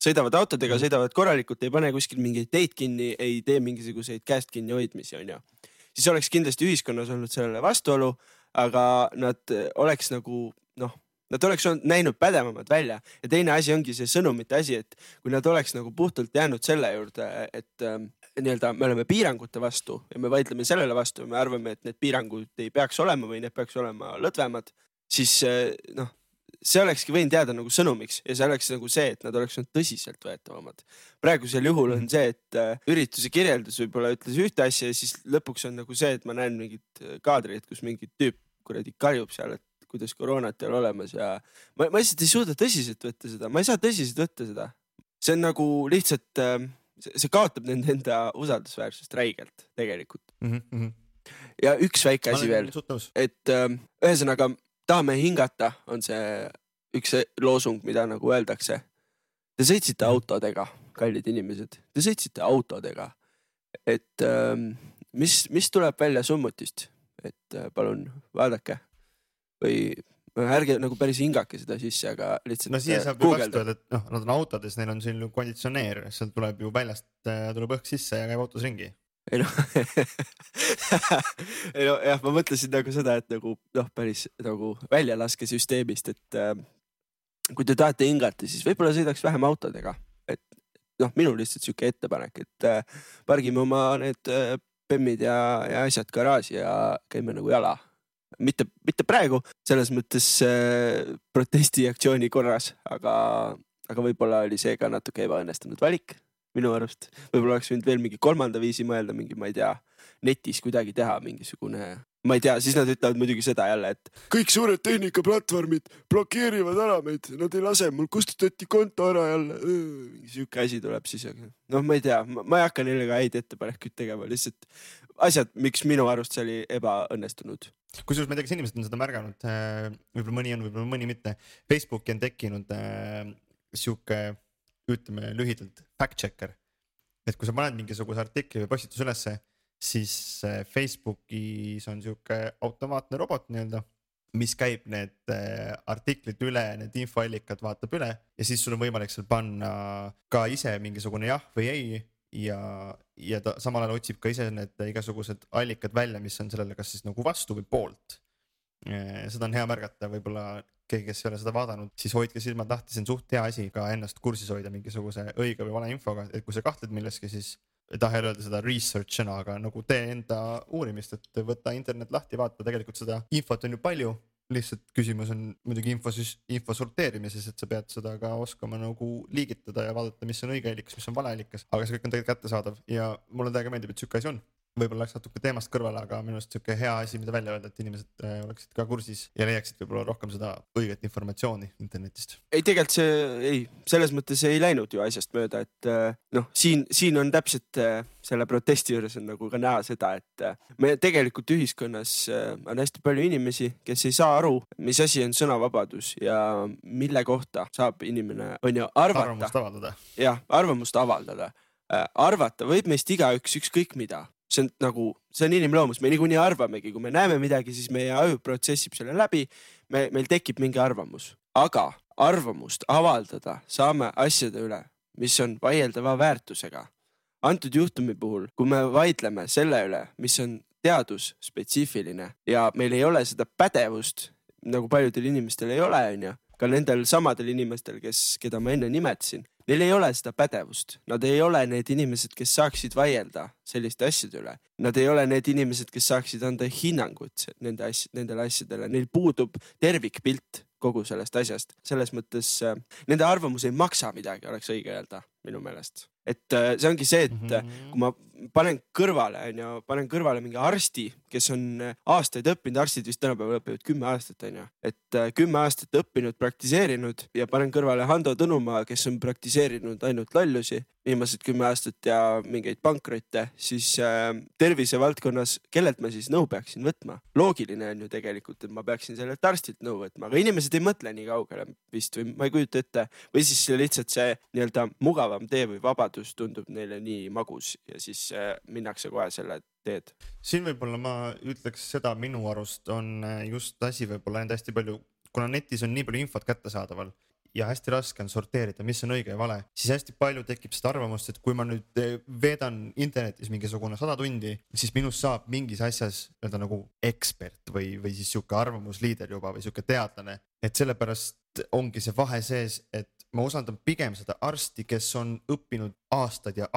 Sõidavad autodega, sõidavad korralikult, ei pane kuskil mingeid teid kinni, ei tee mingisuguseid käest kinni hoidmisi, on ju. Siis oleks kindlasti ühiskonnas olnud sellele vastuolu, aga nad oleks nagu nad oleks näinud pädevamad välja ja teine asi ongi see sõnumite asi, et kui nad oleks nagu puhtalt jäänud selle juurde, et nii-öelda me oleme piirangute vastu ja me vaidleme sellele vastu ja me arvame, et need piirangud ei peaks olema või need peaks olema lõdvemad, siis see olekski võinud jääda nagu sõnumiks ja see oleks nagu see, et nad oleks olnud tõsiselt võetavamad. Praegusel juhul on see, et ürituse kirjeldus võib-olla ütles ühte asja ja siis lõpuks on nagu see, et ma näen mingit kaadrit, kus mingi tüüp kuradi karjub seal, et kuidas koroonat ei ole olemas ja ma lihtsalt ei suuda tõsiselt võtta seda. Ma ei saa tõsiselt võtta seda. See on nagu lihtsalt, see kaotab nende enda usaldusväärsust räigelt tegelikult. Ja üks väike asi veel, et ühesõnaga tahame hingata on see üks loosung, mida nagu öeldakse. Te sõitsite autodega, kallid inimesed. Te sõitsite autodega. Et mis tuleb välja summutist? Et palun vaadake. Või ärge nagu päris hingake seda sisse, aga lihtsalt siia saab ju vastu öelda, et nad on autodes, neil on siin konditsioneer, seal tuleb ju väljast, tuleb õhk sisse ja käib autos ringi. Ei no jah, ma mõtlesin nagu seda, et nagu päris nagu väljalaske süsteemist, et kui te tahate hingata, siis võib-olla sõidaks vähem autodega. Et minul lihtsalt siuke ettepanek, et pargime oma need pemmid ja asjad garaaži ja käime nagu jala. Mitte praegu, selles mõttes protestiaktsiooni korras, aga võib-olla oli see ka natuke ebaõnnestunud valik minu arust. Võib-olla oleks võinud veel mingi kolmanda viisi mõelda, mingi, ma ei tea, netis kuidagi teha mingisugune, ma ei tea, siis nad ütlevad muidugi seda jälle, et kõik suured tehnikaplatvormid blokeerivad ära meid, nad ei lase, mul kustutati konto ära jälle, mingi siuke asi tuleb siis, ma ei tea, ma ei hakka neile ka häid ettepanekuid tegema, lihtsalt asjad, miks minu arust see oli ebaõnnestunud. Kusjuures ma ei tea, kas inimesed on seda märganud, võib-olla mõni on, võib-olla mõni mitte. Facebooki on tekkinud siuke, ütleme lühidalt, fact-checker. Et kui sa paned mingisuguse artikli või postitus ülesse, siis Facebookis on siuke automaatne robot nii-öelda, mis käib need artiklid üle, need infoallikad vaatab üle ja siis sul on võimalik seal panna ka ise mingisugune jah või ei. Ja ta samal ajal otsib ka ise need igasugused allikad välja, mis on sellele kas siis nagu vastu või poolt. Seda on hea märgata, võib-olla keegi, kes ei ole seda vaadanud, siis hoidke silmad lahti, see on suht hea asi ka ennast kursis hoida mingisuguse õige või vale infoga, et kui sa kahtled milleski, siis ei taha öelda seda research'ina, aga nagu tee enda uurimist, et võtta internet lahti, vaata, tegelikult seda infot on ju palju. Lihtsalt küsimus on muidugi info sorteerimises, et sa pead seda ka oskama nagu liigitada ja vaadata, mis on õige allikas, mis on vale allikas, aga see kõik on tegelikult kättesaadav ja mulle täiega meeldib, et siuke asi on. Võib-olla läks natuke teemast kõrvale, aga minu arust siuke hea asi, mida välja öelda, et inimesed oleksid ka kursis ja leiaksid võib-olla rohkem seda õiget informatsiooni internetist. Ei, tegelikult selles mõttes ei läinud ju asjast mööda, et siin on täpselt selle protesti juures on nagu ka näha seda, et me tegelikult ühiskonnas on hästi palju inimesi, kes ei saa aru, mis asi on sõnavabadus ja mille kohta saab inimene on ju arvata. Arvamust avaldada. Jah, arvamust avaldada. Arvata võib meist igaüks ükskõik mida. See on inimloomus, me niikuinii arvamegi, kui me näeme midagi, siis meie aju protsessib selle läbi, meil tekib mingi arvamus. Aga arvamust avaldada saame asjade üle, mis on vaieldava väärtusega. Antud juhtumi puhul, kui me vaidleme selle üle, mis on teadusspetsiifiline ja meil ei ole seda pädevust, nagu paljudel inimestel ei ole, ka nendel samadel inimestel, keda ma enne nimetasin, neil ei ole seda pädevust. Nad ei ole need inimesed, kes saaksid vaielda selliste asjade üle. Nad ei ole need inimesed, kes saaksid anda hinnangut nendele asjadele. Neil puudub tervikpilt kogu sellest asjast. Selles mõttes nende arvamus ei maksa midagi, oleks õige öelda minu meelest. Et see ongi see, et kui panen kõrvale mingi arsti, kes on aastaid õppinud, arstid vist tänapäeval õpivad 10 aastat, on ju. Et 10 aastat õppinud, praktiseerinud ja panen kõrvale Hando Tõnumaa, kes on praktiseerinud ainult lallusi viimased 10 aastat ja mingeid pankrotte, siis tervisevaldkonnas, kellelt ma siis nõu peaksin võtma? Loogiline on ju tegelikult, et ma peaksin sellelt arstilt nõu võtma, aga inimesed ei mõtle nii kaugele vist või ma ei kujuta ette või siis lihtsalt see nii-öelda mugavam tee või vabadus tundub neile nii magus ja siis minnakse kohe selle teed. Siin võib-olla ma ütleks seda minu arust on just asi võib-olla enda hästi palju, kuna netis on nii palju infot kättesaadaval ja hästi raske on sorteerida, mis on õige ja vale, siis hästi palju tekib seda arvamust, et kui ma nüüd veedan internetis mingisugune 100 tundi, siis minust saab mingis asjas öelda nagu ekspert või siis siuke arvamusliider juba või siuke teadlane, et sellepärast ongi see vahe sees, et ma usaldan pigem seda arsti, kes on õppinud aastad ja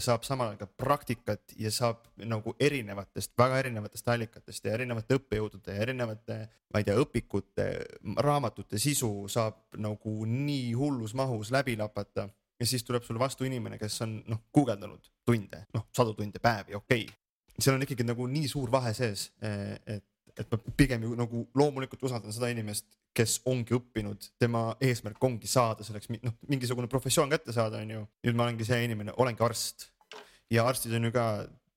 saab samal ajal ka praktikat ja saab nagu väga erinevatest allikatest ja erinevate õppejõudude ja erinevate, ma ei tea, õpikute, raamatute sisu saab nagu nii hullus mahus läbi lapata ja siis tuleb sulle vastu inimene, kes on guugeldanud tunde, 100 tunde päevi, okei. Seal on ikkagi nagu nii suur vahe sees, et ma pigem ju nagu loomulikult usaldan seda inimest, kes ongi õppinud, tema eesmärk ongi saada selleks mingisugune professioon kätte saada, on ju. Nüüd ma olengi see inimene, olengi arst ja arstid on ju ka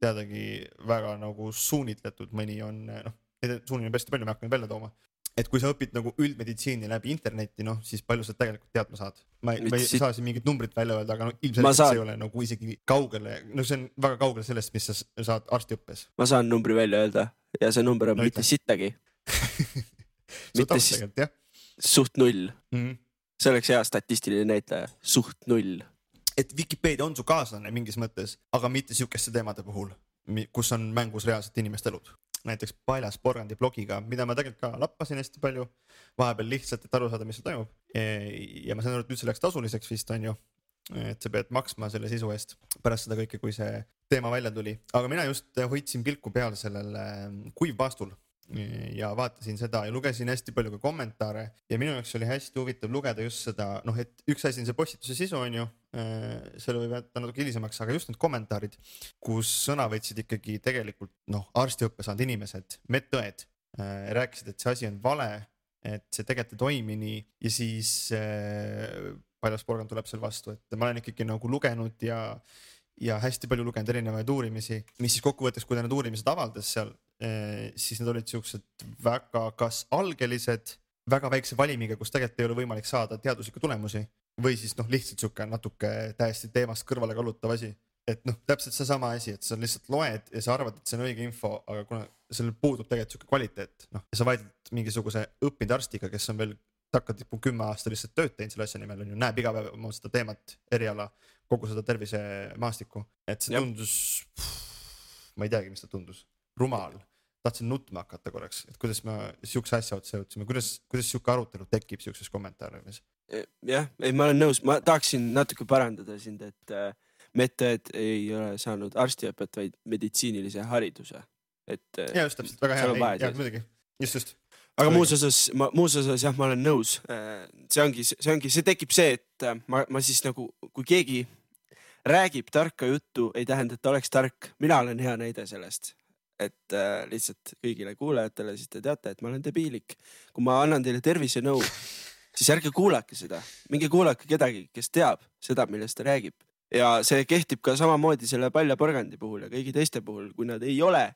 teadagi väga nagu suunitletud, mõni on, suunil on hästi palju, me hakkame välja tooma. Et kui sa õpid nagu üldmeditsiini läbi interneti, siis palju sa tegelikult teadma saad. Ma ei saa siin mingit numbrit välja öelda, aga ilmselt see ei ole nagu isegi kaugele, see on väga kaugele sellest, mis sa saad arstiõppes. Ma saan numbri välja öelda ja see number on mitte sittagi. Mitte siis suht 0. See oleks hea statistiline näitaja, suht 0. Et Wikipedia on su kaaslane mingis mõttes, aga mitte siukeste teemade puhul, kus on mängus reaalselt inimeste elud. Näiteks Paljas Porgandi blogiga, mida ma tegelikult ka lappasin hästi palju, vahepeal lihtsalt, et aru saada, mis seal toimub. Ja ma saan aru, et nüüd see läks tasuliseks vist on ju, et sa pead maksma selle sisu eest pärast seda kõike, kui see teema välja tuli. Aga mina just hoidsin pilku peal sellele kuivpaastul ja vaatasin seda ja lugesin hästi palju ka kommentaare ja minu jaoks oli hästi huvitav lugeda just seda, et üks asi on see postituse sisu on ju, selle võib jätta natuke hilisemaks, aga just need kommentaarid, kus sõna võtsid ikkagi tegelikult arstiõppe saanud inimesed, medõed, rääkisid, et see asi on vale, et see tegelikult ei toimi nii ja siis Paljas Porgand tuleb seal vastu, et ma olen ikkagi nagu lugenud ja hästi palju lugenud erinevaid uurimisi, mis siis kokkuvõttes, kui ta need uurimised avaldas seal, siis need olid siuksed väga kas algelised, väga väikse valimiga, kus tegelikult ei ole võimalik saada teaduslikke tulemusi või siis lihtsalt siuke natuke täiesti teemast kõrvale kallutav asi. Et täpselt see sama asi, et sa lihtsalt loed ja sa arvad, et see on õige info, aga kuna sellel puudub tegelikult siuke kvaliteet, ja sa vaidled mingisuguse õppinud arstiga, kes on veel takkatipu 10 aasta lihtsalt tööd teinud selle asja nimel, on ju, näeb iga päev oma seda teemat, eriala, kogu seda tervisemaastikku, et see tundus, ma ei teagi, mis ta tundus, rumal, tahtsin nutma hakata korraks, et kuidas ma siukse asja otsa jõudsime, kuidas siuke arutelu tekib siukses kommentaariumis? Jah, ei, ma olen nõus, ma tahaksin natuke parandada sind, et medõed ei ole saanud arstiõpet, vaid meditsiinilise hariduse. Ja just täpselt, väga hea, ja muidugi, just. Aga muus osas jah, ma olen nõus. See tekib see, et ma siis nagu, kui keegi räägib tarka juttu, ei tähenda, et ta oleks tark. Mina olen hea näide sellest, et lihtsalt kõigile kuulajatele siis te teate, et ma olen debiilik. Kui ma annan teile tervise nõu, siis ärge kuulake seda. Minge kuulake kedagi, kes teab seda, millest ta räägib. Ja see kehtib ka samamoodi selle Palja Porgandi puhul ja kõigi teiste puhul, kui nad ei ole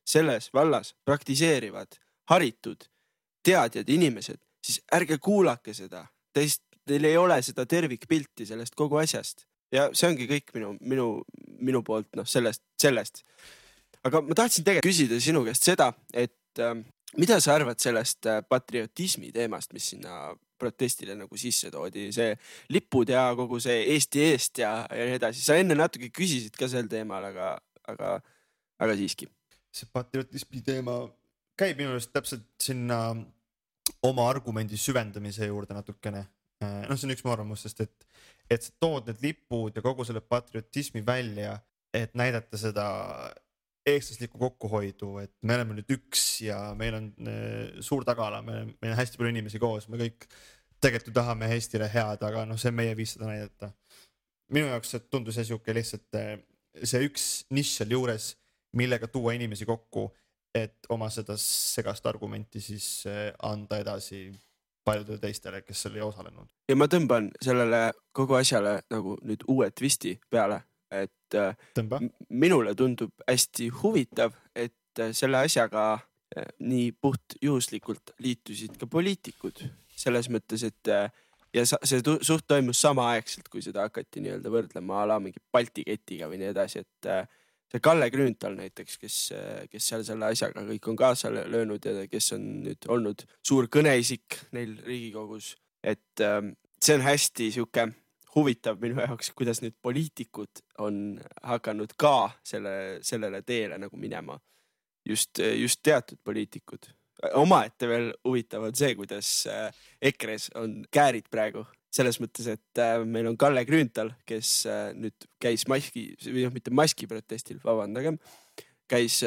selles vallas praktiseerivad, haritud, teadjad inimesed, siis ärge kuulake seda. Teil ei ole seda tervikpilti sellest kogu asjast. Ja see ongi kõik minu poolt sellest. Aga ma tahtsin tegelikult küsida sinu käest seda, et mida sa arvad sellest patriotismi teemast, mis sinna protestile nagu sisse toodi, see lipud ja kogu see Eesti eest ja nii edasi. Sa enne natuke küsisid ka sel teemal, aga siiski. See patriotismi teema käib minu arust täpselt sinna oma argumendi süvendamise juurde natukene. See on üks mu arvamus, sest et sa tood need lipud ja kogu selle patriotismi välja, et näidata seda eestlaslikku kokkuhoidu, et me oleme nüüd üks ja meil on suur tagala, meil on hästi palju inimesi koos, me kõik tegelikult tahame Eestile head, aga see on meie viis seda näidata. Minu jaoks tundus see siuke lihtsalt see üks nišš seal juures, millega tuua inimesi kokku, et oma seda segast argumenti siis anda edasi paljudele teistele, kes seal ei osalenud. Ja ma tõmban sellele kogu asjale nagu nüüd uue twisti peale, et minule tundub hästi huvitav, et selle asjaga nii puht juhuslikult liitusid ka poliitikud. Selles mõttes, et ja see suht toimus samaaegselt, kui seda hakati nii-öelda võrdlema ala mingi Balti ketiga või nii edasi, et see Kalle Grünthal näiteks, kes seal selle asjaga kõik on kaasa löönud ja kes on nüüd olnud suur kõneisik neil Riigikogus, et see on hästi siuke huvitav minu jaoks, kuidas nüüd poliitikud on hakanud ka sellele teele nagu minema. Just teatud poliitikud. Omaette veel huvitav on see, kuidas EKRE-s on käärid praegu. Selles mõttes, et meil on Kalle Grünthal, kes nüüd käis mitte maski protestil, vabandagem, käis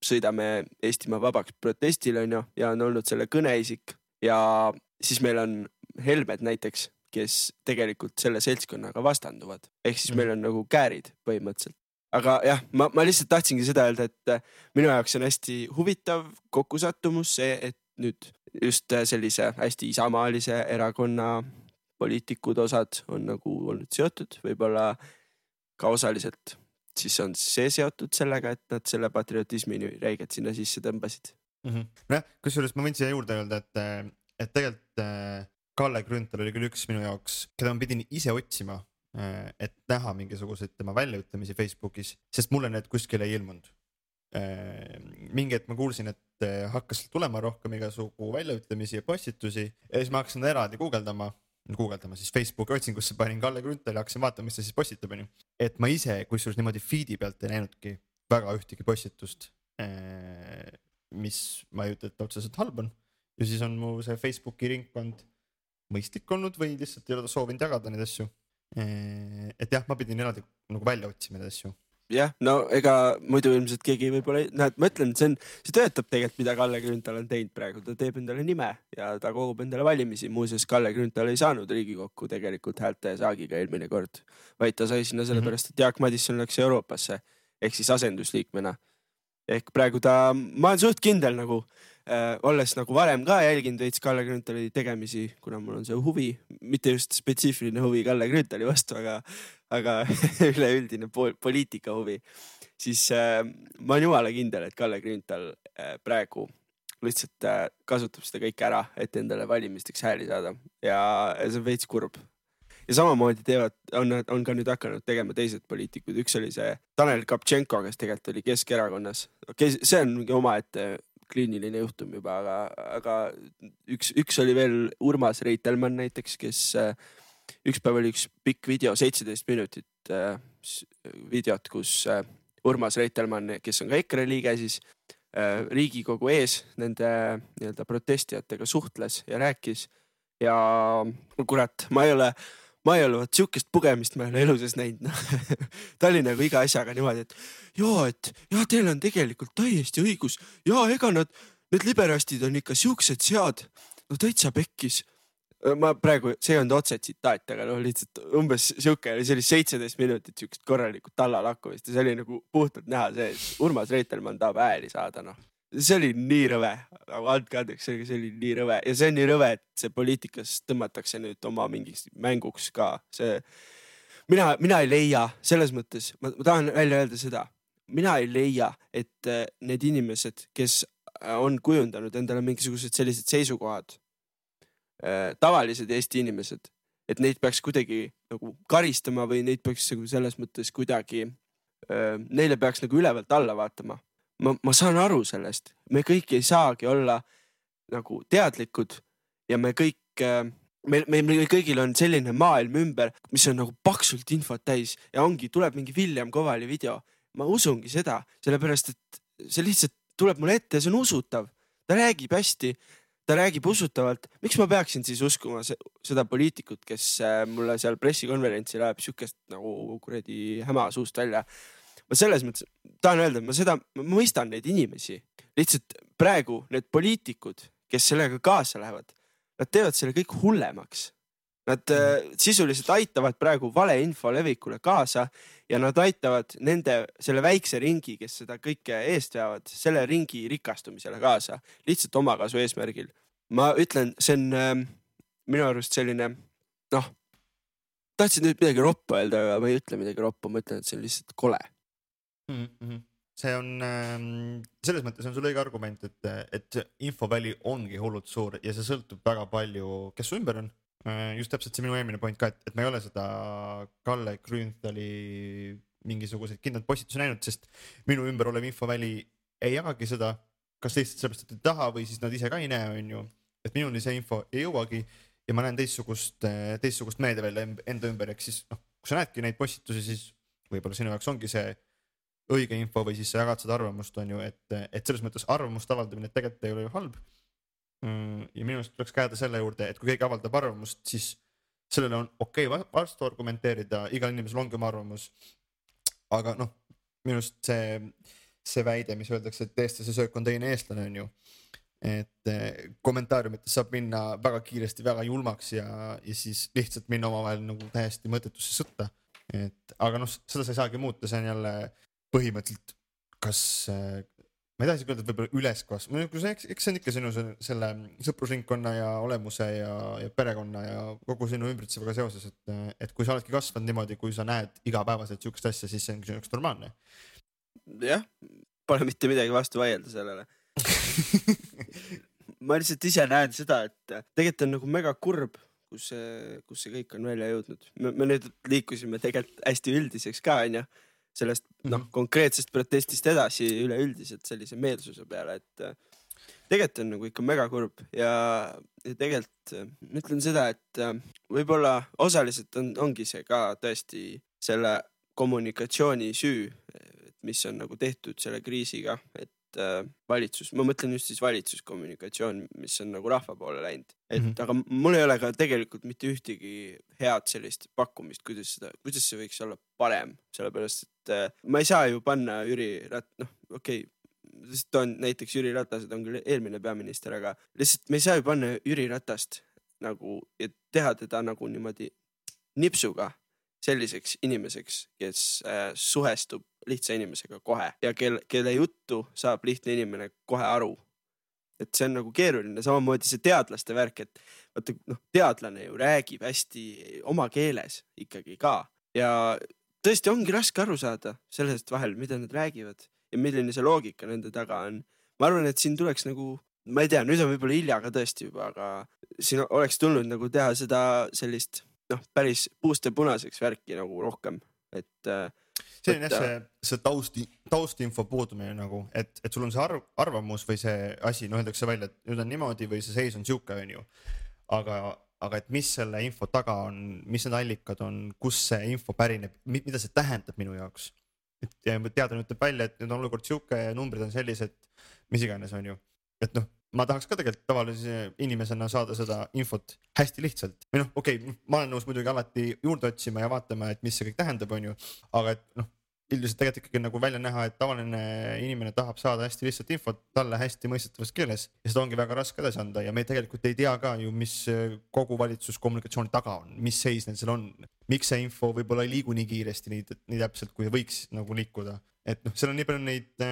sõidame Eestimaa vabaks protestil ja on olnud selle kõneisik. Ja siis meil on Helmed näiteks, kes tegelikult selle seltskonnaga vastanduvad. Ehk siis meil on nagu käärid põhimõtteliselt. Aga jah, ma lihtsalt tahtsingi seda öelda, et minu jaoks on hästi huvitav kokkusattumus see, et nüüd just sellise hästi isamaalise erakonna poliitikud osad on nagu olnud seotud, võib-olla ka osaliselt siis on see seotud sellega, et nad selle patriotismi räiged sinna sisse tõmbasid. Kusjuures ma võin siia juurde öelda, et tegelikult Kalle Grünthal oli küll üks minu jaoks, keda ma pidin ise otsima, et näha mingisuguseid tema väljaütlemisi Facebookis, sest mulle need kuskil ei ilmunud. Mingi hetk ma kuulsin, et hakkas tulema rohkem igasugu väljaütlemisi ja postitusi ja siis ma hakkasin eraldi guugeldama siis Facebooki otsingusse panin Kalle Grünthal ja hakkasin vaatama, mis ta siis postitab. Et ma ise kusjuures niimoodi feedi pealt ei näinudki väga ühtegi postitust, mis ma ei ütle, et otseselt halb on. Ja siis on mu see Facebooki ringkond mõistlik olnud või lihtsalt ei ole soovinud jagada neid asju. Et jah, ma pidin eraldi nagu välja otsima neid asju. Jah, no ega muidu ilmselt keegi võib-olla, ma ütlen, see töötab tegelikult, mida Kalle Grünthal on teinud praegu. Ta teeb endale nime ja ta kogub endale valimisi. Muuseas, Kalle Grünthal ei saanud Riigikokku tegelikult häälte saagiga eelmine kord, vaid ta sai sinna sellepärast, et Jaak Madison läks Euroopasse ehk siis asendusliikmena. Ehk praegu ma olen suht kindel nagu, olles nagu varem ka jälginud veits Kalle Grünthali tegemisi, kuna mul on see huvi, mitte just spetsiifiline huvi Kalle Grünthali vastu, aga üleüldine poliitika huvi, siis ma olen jumala kindel, et Kalle Grünthal praegu lihtsalt kasutab seda kõik ära, et endale valimisteks hääli saada ja see on veits kurb. Ja samamoodi on ka nüüd hakanud tegema teised poliitikud. Üks oli see Tanel Kaptšenko, kes tegelikult oli Keskerakonnas. See on mingi omaette kliiniline juhtum juba, aga üks oli veel Urmas Reitelmann näiteks, kes üks päev oli üks pikk video, 17 minutit videot, kus Urmas Reitelmann, kes on ka EKRE liige, siis Riigikogu ees nende nii-öelda protestijatega suhtles ja rääkis ja kurat, ma ei ole siukest pugemist ma ei ole eluses näinud. Ta oli nagu iga asjaga niimoodi, et teil on tegelikult täiesti õigus. Ja ega need liberastid on ikka siuksed sead. No täitsa pekkis. Ma praegu, see on otse tsitaat, aga lihtsalt umbes siuke, see oli 17 minutit siukest korralikult tallalakkumist ja see oli nagu puhtalt näha see, et Urmas Reitelmann tahab ääli saada. See oli nii rõve, andke andeks, see oli nii rõve ja see on nii rõve, et see poliitikas tõmmatakse nüüd oma mingiks mänguks ka. Mina ei leia, selles mõttes, ma tahan välja öelda seda, mina ei leia, et need inimesed, kes on kujundanud endale mingisugused sellised seisukohad, tavalised Eesti inimesed, et neid peaks kuidagi nagu karistama või neid peaks selles mõttes kuidagi, neile peaks nagu ülevalt alla vaatama. Ma saan aru sellest, me kõik ei saagi olla nagu teadlikud ja me kõik, meil kõigil on selline maailm ümber, mis on nagu paksult infot täis ja tuleb mingi William Kovali video. Ma usungi seda, sellepärast, et see lihtsalt tuleb mulle ette ja see on usutav. Ta räägib hästi, ta räägib usutavalt. Miks ma peaksin siis uskuma seda poliitikut, kes mulle seal pressikonverentsil läheb siukest nagu kuradi häma suust välja? Ma selles mõttes tahan öelda, ma mõistan neid inimesi. Lihtsalt praegu need poliitikud, kes sellega kaasa lähevad, nad teevad selle kõik hullemaks. Nad sisuliselt aitavad praegu valeinfo levikule kaasa ja nad aitavad selle väikse ringi, kes seda kõike eest veavad, selle ringi rikastumisele kaasa, lihtsalt omakasu eesmärgil. Ma ütlen, see on minu arust selline, tahtsin nüüd midagi roppa öelda, aga ma ei ütle midagi roppa, ma ütlen, et see on lihtsalt kole. See on, selles mõttes on sul õige argument, et infoväli ongi hullult suur ja see sõltub väga palju, kes su ümber on. Just täpselt see minu eelmine point ka, et ma ei ole seda Kalle Grünthali mingisuguseid kindlalt postitusi näinud, sest minu ümber olev infoväli ei jagagi seda, kas lihtsalt sellepärast, et ei taha või siis nad ise ka ei näe, on ju. Et minuni see info ei jõuagi ja ma näen teistsugust meediavälja enda ümber, ehk siis kui sa näedki neid postitusi, siis võib-olla sinu jaoks ongi see õige info või siis sa jagad seda arvamust, on ju, et selles mõttes arvamust avaldamine tegelikult ei ole ju halb. Ja minu arust tuleks käeda selle juurde, et kui keegi avaldab arvamust, siis sellele on okei vastu argumenteerida, igal inimesel ongi oma arvamus. Aga minu arust see väide, mis öeldakse, et eestlase söök on teine eestlane, on ju, et kommentaariumites saab minna väga kiiresti, väga julmaks ja siis lihtsalt minna omavahel nagu täiesti mõttetusse sõtta. Aga seda sa ei saagi muuta, see on jälle põhimõtteliselt, kas ma ei taha isegi öelda, et võib-olla üleskasv, eks see on ikka sinu selle sõprusringkonna ja olemuse ja perekonna ja kogu sinu ümbritsevaga seoses, et kui sa oledki kasvanud niimoodi, kui sa näed igapäevaselt sihukest asja, siis see on üks normaalne. Jah, pole mitte midagi vastu vaielda sellele. Ma lihtsalt ise näen seda, et tegelikult on nagu mega kurb, kus see kõik on välja jõudnud. Me nüüd liikusime tegelikult hästi üldiseks ka, on ju. Sellest konkreetsest protestist edasi üleüldiselt sellise meelsuse peale, et tegelikult on nagu ikka mega kurb ja tegelikult ütlen seda, et võib-olla osaliselt ongi see ka tõesti selle kommunikatsiooni süü, mis on nagu tehtud selle kriisiga, et valitsus, ma mõtlen just siis valitsuskommunikatsioon, mis on nagu rahva poole läinud. Aga mul ei ole ka tegelikult mitte ühtegi head sellist pakkumist, kuidas see võiks olla parem, sellepärast, et ma ei saa ju panna Jüri näiteks Jüri Ratased on küll eelmine peaminister, aga lihtsalt me ei saa ju panna Jüri Ratast nagu, et teha teda nagu niimoodi nipsuga selliseks inimeseks, kes suhestub lihtsa inimesega kohe ja kelle juttu saab lihtne inimene kohe aru. Et see on nagu keeruline, samamoodi see teadlaste värk, et vaata, teadlane ju räägib hästi oma keeles ikkagi ka ja tõesti ongi raske aru saada sellest vahel, mida nad räägivad ja milline see loogika nende taga on. Ma arvan, et siin tuleks nagu, ma ei tea, nüüd on võib-olla hilja ka tõesti juba, aga siin oleks tulnud nagu teha seda sellist päris puuste punaseks värki nagu rohkem, et see on jah see taustinfo puudumine nagu, et sul on see arvamus või see asi, öeldakse välja, et nüüd on niimoodi või see seis on siuke, on ju. Aga et mis selle info taga on, mis need allikad on, kus see info pärineb, mida see tähendab minu jaoks. Et teadlane ütleb välja, et nüüd on olukord siuke ja numbrid on sellised, mis iganes, on ju. Et ma tahaks ka tegelikult tavalise inimesena saada seda infot hästi lihtsalt. Või okei, ma olen nõus muidugi alati juurde otsima ja vaatama, et mis see kõik tähendab, on ju. Aga et üldiselt tegelikult ikkagi nagu välja näha, et tavaline inimene tahab saada hästi lihtsalt infot talle hästi mõistetavas keeles ja seda ongi väga raske edasi anda ja me tegelikult ei tea ka ju, mis kogu valitsuskommunikatsiooni taga on, mis seis neil seal on, miks see info võib-olla ei liigu nii kiiresti, nii täpselt, kui võiks nagu liikuda. Et seal on nii palju neid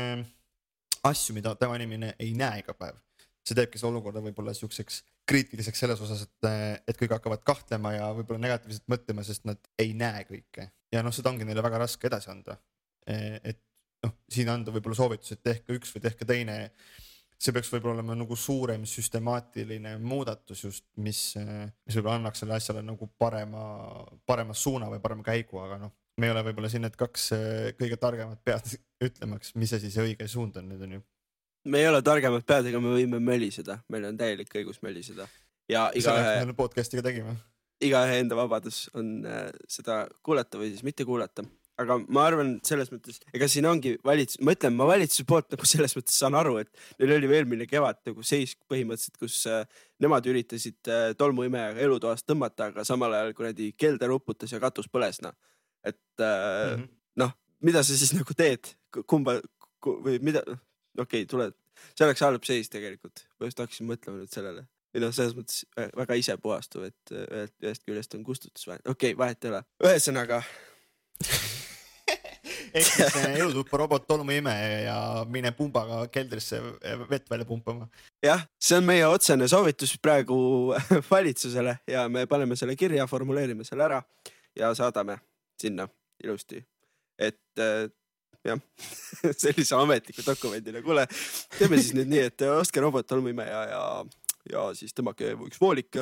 asju, mida tavainimene ei näe iga päev. See teebki see olukorda võib-olla siukseks kriitiliseks selles osas, et kõik hakkavad kahtlema ja võib-olla negatiivselt mõtlema, sest nad ei näe kõike. Ja seda ongi neile väga raske edasi anda. Et siin anda võib-olla soovitus, et tehke üks või tehke teine. See peaks võib-olla olema nagu suurem süstemaatiline muudatus just, mis võib-olla annaks selle asjale nagu parema suuna või parema käigu, aga me ei ole võib-olla siin need kaks kõige targemad pead ütlemaks, mis asi see õige suund on nüüd on ju. Me ei ole targemad pead, ega me võime möliseda. Meil on täielik õigus möliseda. Ja selle podcastiga tegime. Igaühe enda vabadus on seda kuulata või siis mitte kuulata. Aga ma arvan selles mõttes, ega siin ongi ma ütlen, ma valitsuse poolt nagu selles mõttes saan aru, et neil oli eelmine kevad nagu seis põhimõtteliselt, kus nemad üritasid tolmuimejaga elutoast tõmmata, aga samal ajal kuradi kelder uputas ja katus põles. Et mida sa siis nagu teed? Kumba või mida? Okei, tule. See oleks halb seis tegelikult. Ma just hakkasin mõtlema nüüd sellele. Või selles mõttes väga ise puhastuv, et ühest küljest on kustutusvahet. Okei, vahet ei ole. Ühesõnaga. ehk siis elutuppa robot tolmuimeja ja mine pumbaga keldrisse vett välja pumpama. Jah, see on meie otsene soovitus praegu valitsusele ja me paneme selle kirja, formuleerime selle ära ja saadame sinna ilusti. Et jah, sellise ametliku dokumendile. Kuule, teeme siis nüüd nii, et ostke robot tolmuimeja ja siis tõmmake üks voolik,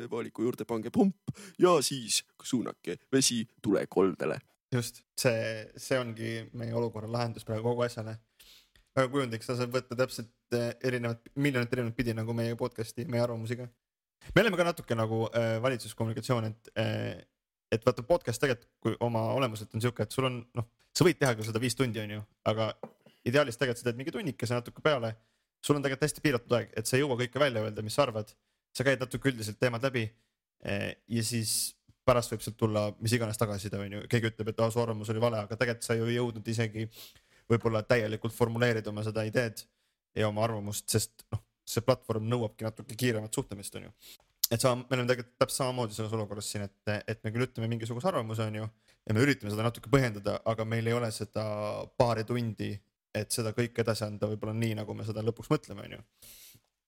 vooliku juurde pange pump ja siis suunake vesi tulekoldele. Just, see ongi meie olukorra lahendus praegu kogu asjale. Väga kujundiks, ta saab võtta täpselt miljonit erinevat pidi nagu meie podcasti, meie arvamusiga. Me oleme ka natuke nagu valitsuskommunikatsioon, et vaata podcast tegelikult, kui oma olemuselt on siuke, et sul on, sa võid teha küll seda 5 tundi on ju, aga ideaalis tegelikult sa teed mingi tunnikese natuke peale. Sul on tegelikult hästi piiratud aeg, et sa ei jõua kõike välja öelda, mis sa arvad. Sa käid natuke üldiselt teemad läbi ja siis pärast võib sealt tulla mis iganes tagasiside on ju. Keegi ütleb, et su arvamus oli vale, aga tegelikult sa ju ei jõudnud isegi võib-olla täielikult formuleerida oma seda ideed ja oma arvamust, sest see platvorm nõuabki natuke kiiremat suhtlemist on ju. Et me oleme tegelikult täpselt samamoodi selles olukorras siin, et me küll ütleme mingisuguse arvamuse on ju ja me üritame seda natuke põhjendada, aga meil ei ole seda paari tundi, et seda kõik edasi anda võib-olla nii, nagu me seda lõpuks mõtleme on ju.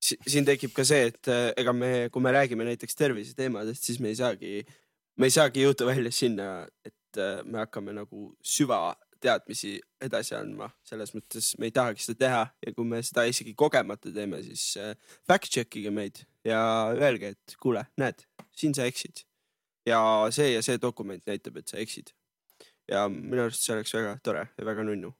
Siin tekib ka see, et ega kui me räägime näiteks tervise teemadest, siis me ei saagi jõuda välja sinna, et me hakkame nagu süvateadmisi edasi andma. Selles mõttes me ei tahagi seda teha ja kui me seda isegi kogemata teeme, siis fact-checkige meid ja öelge, et kuule, näed, siin sa eksid. Ja see dokument näitab, et sa eksid. Ja minu arust see oleks väga tore ja väga nunnu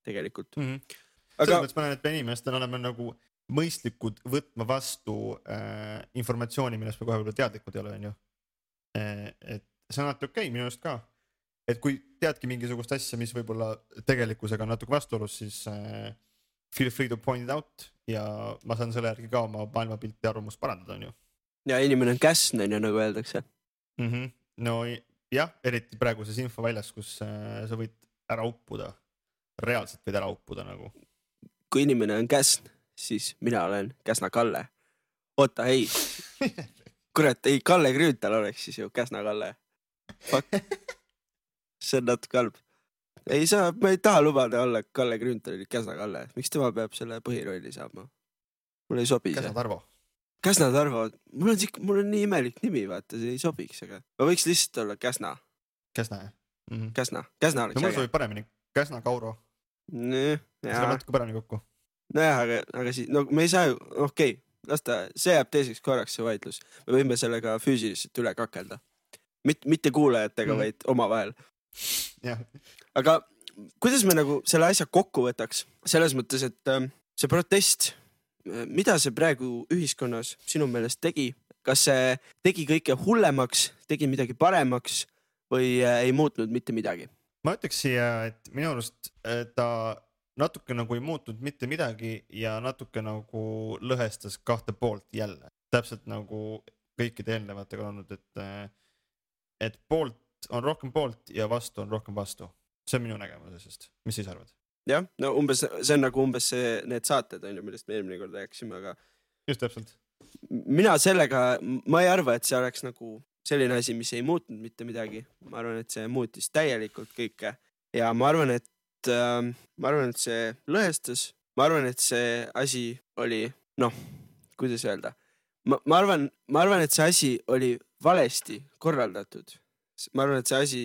tegelikult. Aga selles mõttes ma näen, et me inimestena oleme nagu mõistlikud võtma vastu informatsiooni, millest me kohe võib-olla teadlikud ei ole, on ju. Et see on alati okei, minu arust ka. Et kui teadki mingisugust asja, mis võib-olla tegelikkusega on natuke vastuolus, siis feel free to point it out ja ma saan selle järgi ka oma maailmapilti ja arvamust parandada, on ju. Ja inimene on käsnen ja nagu öeldakse. No jah, eriti praeguses infoväljas, kus sa võid ära uppuda. Reaalselt võid ära uppuda nagu. Kui inimene on käsn, siis mina olen Käsna Kalle. Oota, ei. Kurat, ei, Kalle Grünthal oleks siis ju Käsna Kalle. Fuck. See on natuke halb. Ma ei taha lubada olla Kalle Grünthal Käsna Kalle. Miks tema peab selle põhirolli saama? Mul ei sobi see. Käsna Tarvo. Käsna Tarvo. Mul on nii imelik nimi, vaata, see ei sobiks, aga ma võiks lihtsalt olla Käsna. Käsna, jah? Käsna oleks mul sobib paremini. Käsna Kauro. Seda natuke paremini kokku. Nojah, aga siis, me ei saa ju, okei, see jääb teiseks korraks see vaidlus. Me võime sellega füüsiliselt üle kakelda. Mitte kuulajatega, vaid omavahel. Aga kuidas me nagu selle asja kokku võtaks? Selles mõttes, et see protest, mida see praegu ühiskonnas sinu meelest tegi? Kas see tegi kõike hullemaks, tegi midagi paremaks või ei muutnud mitte midagi? Ma ütleks siia, et minu arust ta natuke nagu ei muutnud mitte midagi ja natuke nagu lõhestas 2 poolt jälle. Täpselt nagu kõikide eelnevatega olnud, et poolt on rohkem poolt ja vastu on rohkem vastu. See on minu nägemusest. Mis siis arvad? Jah, no see on nagu need saated, millest me eelmine kord rääksime, aga just täpselt. Mina sellega, ma ei arva, et see oleks nagu selline asi, mis ei muutnud mitte midagi. Ma arvan, et see muutis täielikult kõike ja ma arvan, et see lõhestas. Ma arvan, et see asi oli, kuidas öelda? Ma arvan, et see asi oli valesti korraldatud. Ma arvan, et see asi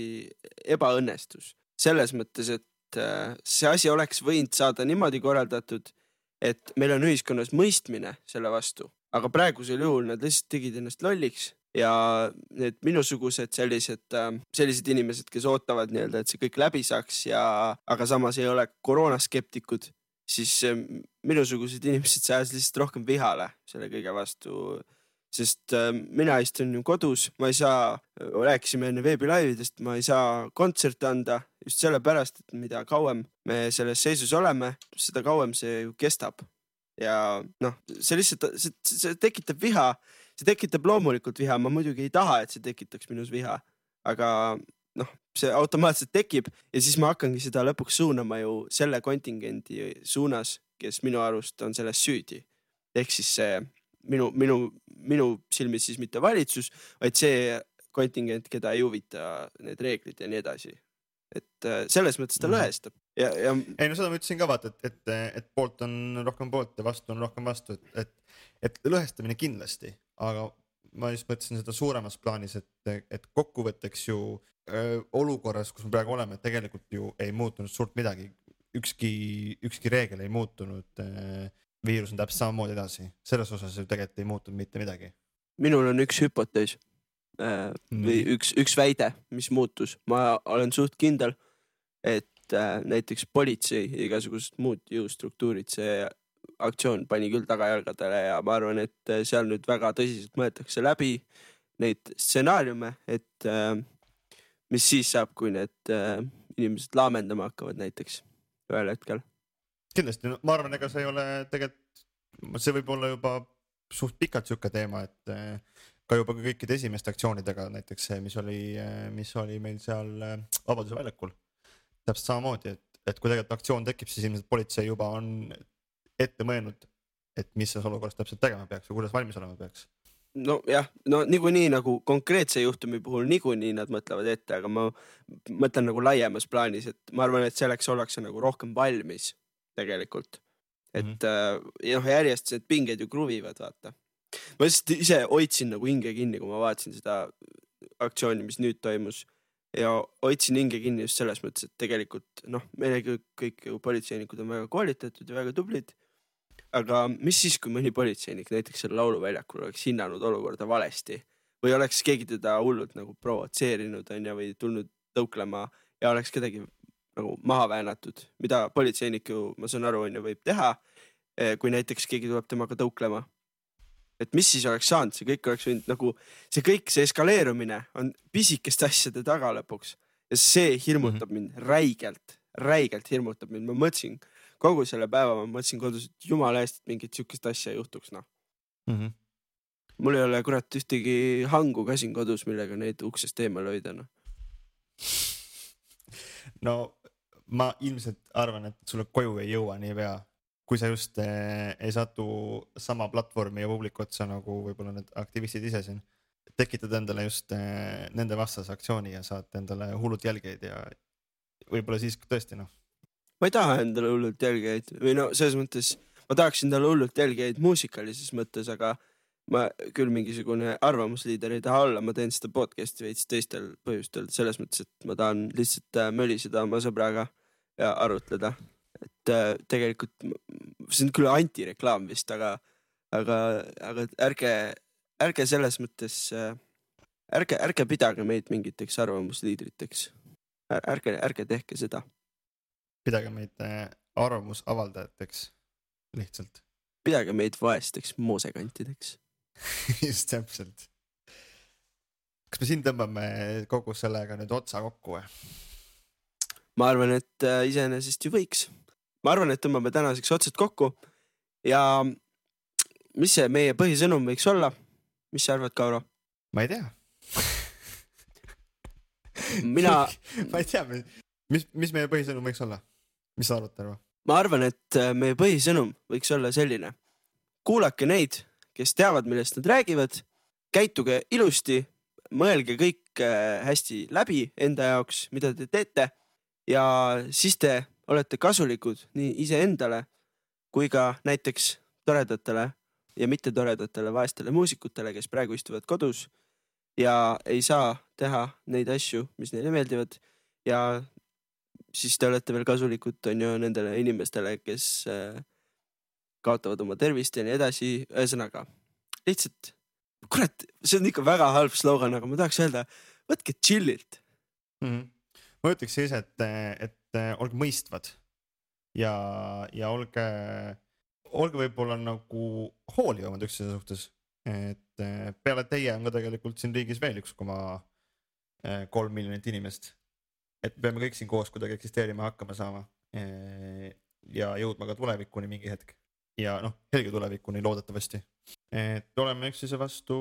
ebaõnnestus. Selles mõttes, et see asi oleks võinud saada niimoodi korraldatud, et meil on ühiskonnas mõistmine selle vastu. Aga praegusel juhul nad lihtsalt tegid ennast lolliks ja need minusugused sellised inimesed, kes ootavad nii-öelda, et see kõik läbi saaks aga samas ei ole koroonaskeptikud, siis minusugused inimesed saavad lihtsalt rohkem vihale selle kõige vastu. Sest mina istun ju kodus, ma ei saa, rääkisime enne veebilaividest, ma ei saa kontserte anda just sellepärast, et mida kauem me selles seisus oleme, seda kauem see ju kestab. Ja see lihtsalt, see tekitab viha, see tekitab loomulikult viha, ma muidugi ei taha, et see tekitaks minus viha, aga see automaatselt tekib ja siis ma hakkangi seda lõpuks suunama ju selle kontingendi suunas, kes minu arust on selles süüdi. Ehk siis see minu silmis siis mitte valitsus, vaid see kontingent, keda ei huvita need reeglid ja nii edasi. et selles mõttes ta lõhestab ja ei no seda ma ütlesin ka vaata, et poolt on rohkem poolt ja vastu on rohkem vastu, et lõhestamine kindlasti, aga ma just mõtlesin seda suuremas plaanis, et kokkuvõtteks ju olukorras, kus me praegu oleme, tegelikult ju ei muutunud suurt midagi, ükski reegel ei muutunud, viirus on täpselt samamoodi edasi, selles osas ju tegelikult ei muutunud mitte midagi. Minul on üks hüpotees või üks väide, mis muutus. Ma olen suht kindel, et näiteks politsei ja igasugused muud jõustruktuurid, see aktsioon pani küll tagajalgadele ja ma arvan, et seal nüüd väga tõsiselt mõeldakse läbi neid stsenaariume, et mis siis saab, kui need inimesed laamendama hakkavad näiteks ühel hetkel. Kindlasti, ma arvan, ega see ei ole tegelikult, see võib olla juba suht pikalt siuke teema, et ka juba kõikide esimeste aktsioonidega, näiteks see, mis oli meil seal Vabaduse väljakul. Täpselt samamoodi, et kui tegelikult aktsioon tekib, siis ilmselt politsei juba on ette mõelnud, et mis selles olukorras täpselt tegema peaks või kuidas valmis olema peaks. No jah, no niikuinii nagu konkreetse juhtumi puhul niikuinii nad mõtlevad ette, aga ma mõtlen nagu laiemas plaanis, et ma arvan, et selleks ollakse nagu rohkem valmis tegelikult. Et järjest need pinged ju kruvivad, vaata. Ma ise hoidsin nagu hinge kinni, kui ma vaatasin seda aktsiooni, mis nüüd toimus ja hoidsin hinge kinni just selles mõttes, et tegelikult meile kõik politseinikud on väga koolitatud ja väga tublid, aga mis siis, kui mõni politseinik näiteks selle lauluväljakul oleks hinnanud olukorda valesti või oleks keegi teda hullult nagu provotseerinud või tulnud tõuklema ja oleks kedagi nagu maha väänatud, mida politseinik ju, ma saan aru, võib teha, kui näiteks keegi tuleb temaga tõuklema. Et mis siis oleks saanud, see kõik oleks võinud nagu, see eskaleerumine on pisikeste asjade taga lõpuks ja see hirmutab mind räigelt hirmutab mind. Ma mõtlesin kogu selle päeva, ma mõtlesin kodus, et jumala eest, et mingit siukest asja juhtuks. Mul ei ole kurat ühtegi hangu ka siin kodus, millega neid uksest eemal hoida. No ma ilmselt arvan, et sulle koju ei jõua nii pea. Kui sa just ei satu sama platvormi ja publiku otsa nagu võib-olla need aktivistid ise siin, tekitad endale just nende vastase aktsiooni ja saad endale hullult jälgeid ja võib-olla siis tõesti Ma ei taha endale hullult jälgeid või selles mõttes ma tahaks endale hullult jälgeid muusikalises mõttes, aga ma küll mingisugune arvamusliider ei taha olla, ma teen seda podcasti veits teistel põhjustel, selles mõttes, et ma tahan lihtsalt möliseda oma sõbraga ja arutleda. Et tegelikult see on küll antireklaam vist, aga ärge selles mõttes ärge pidage meid mingiteks arvamusliidriteks. Ärge tehke seda. Pidage meid arvamusavaldajateks lihtsalt. Pidage meid vaesteks moosekantideks. Just täpselt. Kas me siin tõmbame kogu sellega nüüd otsa kokku või? Ma arvan, et iseenesest ju võiks. Ma arvan, et tõmbame tänaseks otsad kokku ja mis see meie põhisõnum võiks olla? Mis sa arvad, Kauro? Ma ei tea. Ma ei tea, mis meie põhisõnum võiks olla? Mis sa arvad, Tarvo? Ma arvan, et meie põhisõnum võiks olla selline. Kuulake neid, kes teavad, millest nad räägivad, käituge ilusti, mõelge kõik hästi läbi enda jaoks, mida te teete ja siis te olete kasulikud nii iseendale kui ka näiteks toredatele ja mitte toredatele vaestele muusikutele, kes praegu istuvad kodus ja ei saa teha neid asju, mis neile meeldivad ja siis te olete veel kasulikud nendele inimestele, kes kaotavad oma tervist ja nii edasi. Ühesõnaga, lihtsalt, kurat, see on ikka väga halb slogan, aga ma tahaks öelda, võtke chillilt. Ma ütleks siis, et olge mõistvad ja olge võib-olla nagu hoolivamad üksteise suhtes, et peale teie on ka tegelikult siin riigis veel 1,3 miljonit inimest, et peame kõik siin koos kuidagi eksisteerima hakkama saama ja jõudma ka tulevikuni mingi hetk ja helge tulevikuni loodetavasti, et oleme üksteise vastu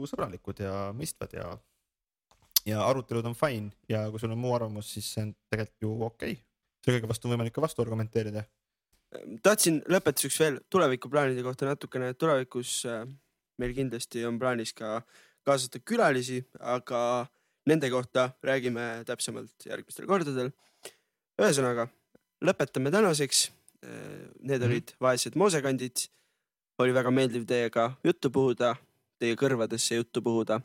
sõbralikud ja mõistvad ja arutelud on fine ja kui sul on muu arvamus, siis see on tegelikult ju okei. See kõige vastu on võimalik ka vastu argumenteerida. Tahtsin lõpetuseks veel tulevikuplaanide kohta natukene, et tulevikus meil kindlasti on plaanis ka kaasata külalisi, aga nende kohta räägime täpsemalt järgmistel kordadel. Ühesõnaga, lõpetame tänaseks. Need olid Vaesed moosekandid. Oli väga meeldiv teiega juttu puhuda, teie kõrvadesse juttu puhuda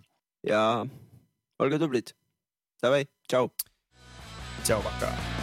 ja olge tublid. Davai, tšau. Tšau, paka.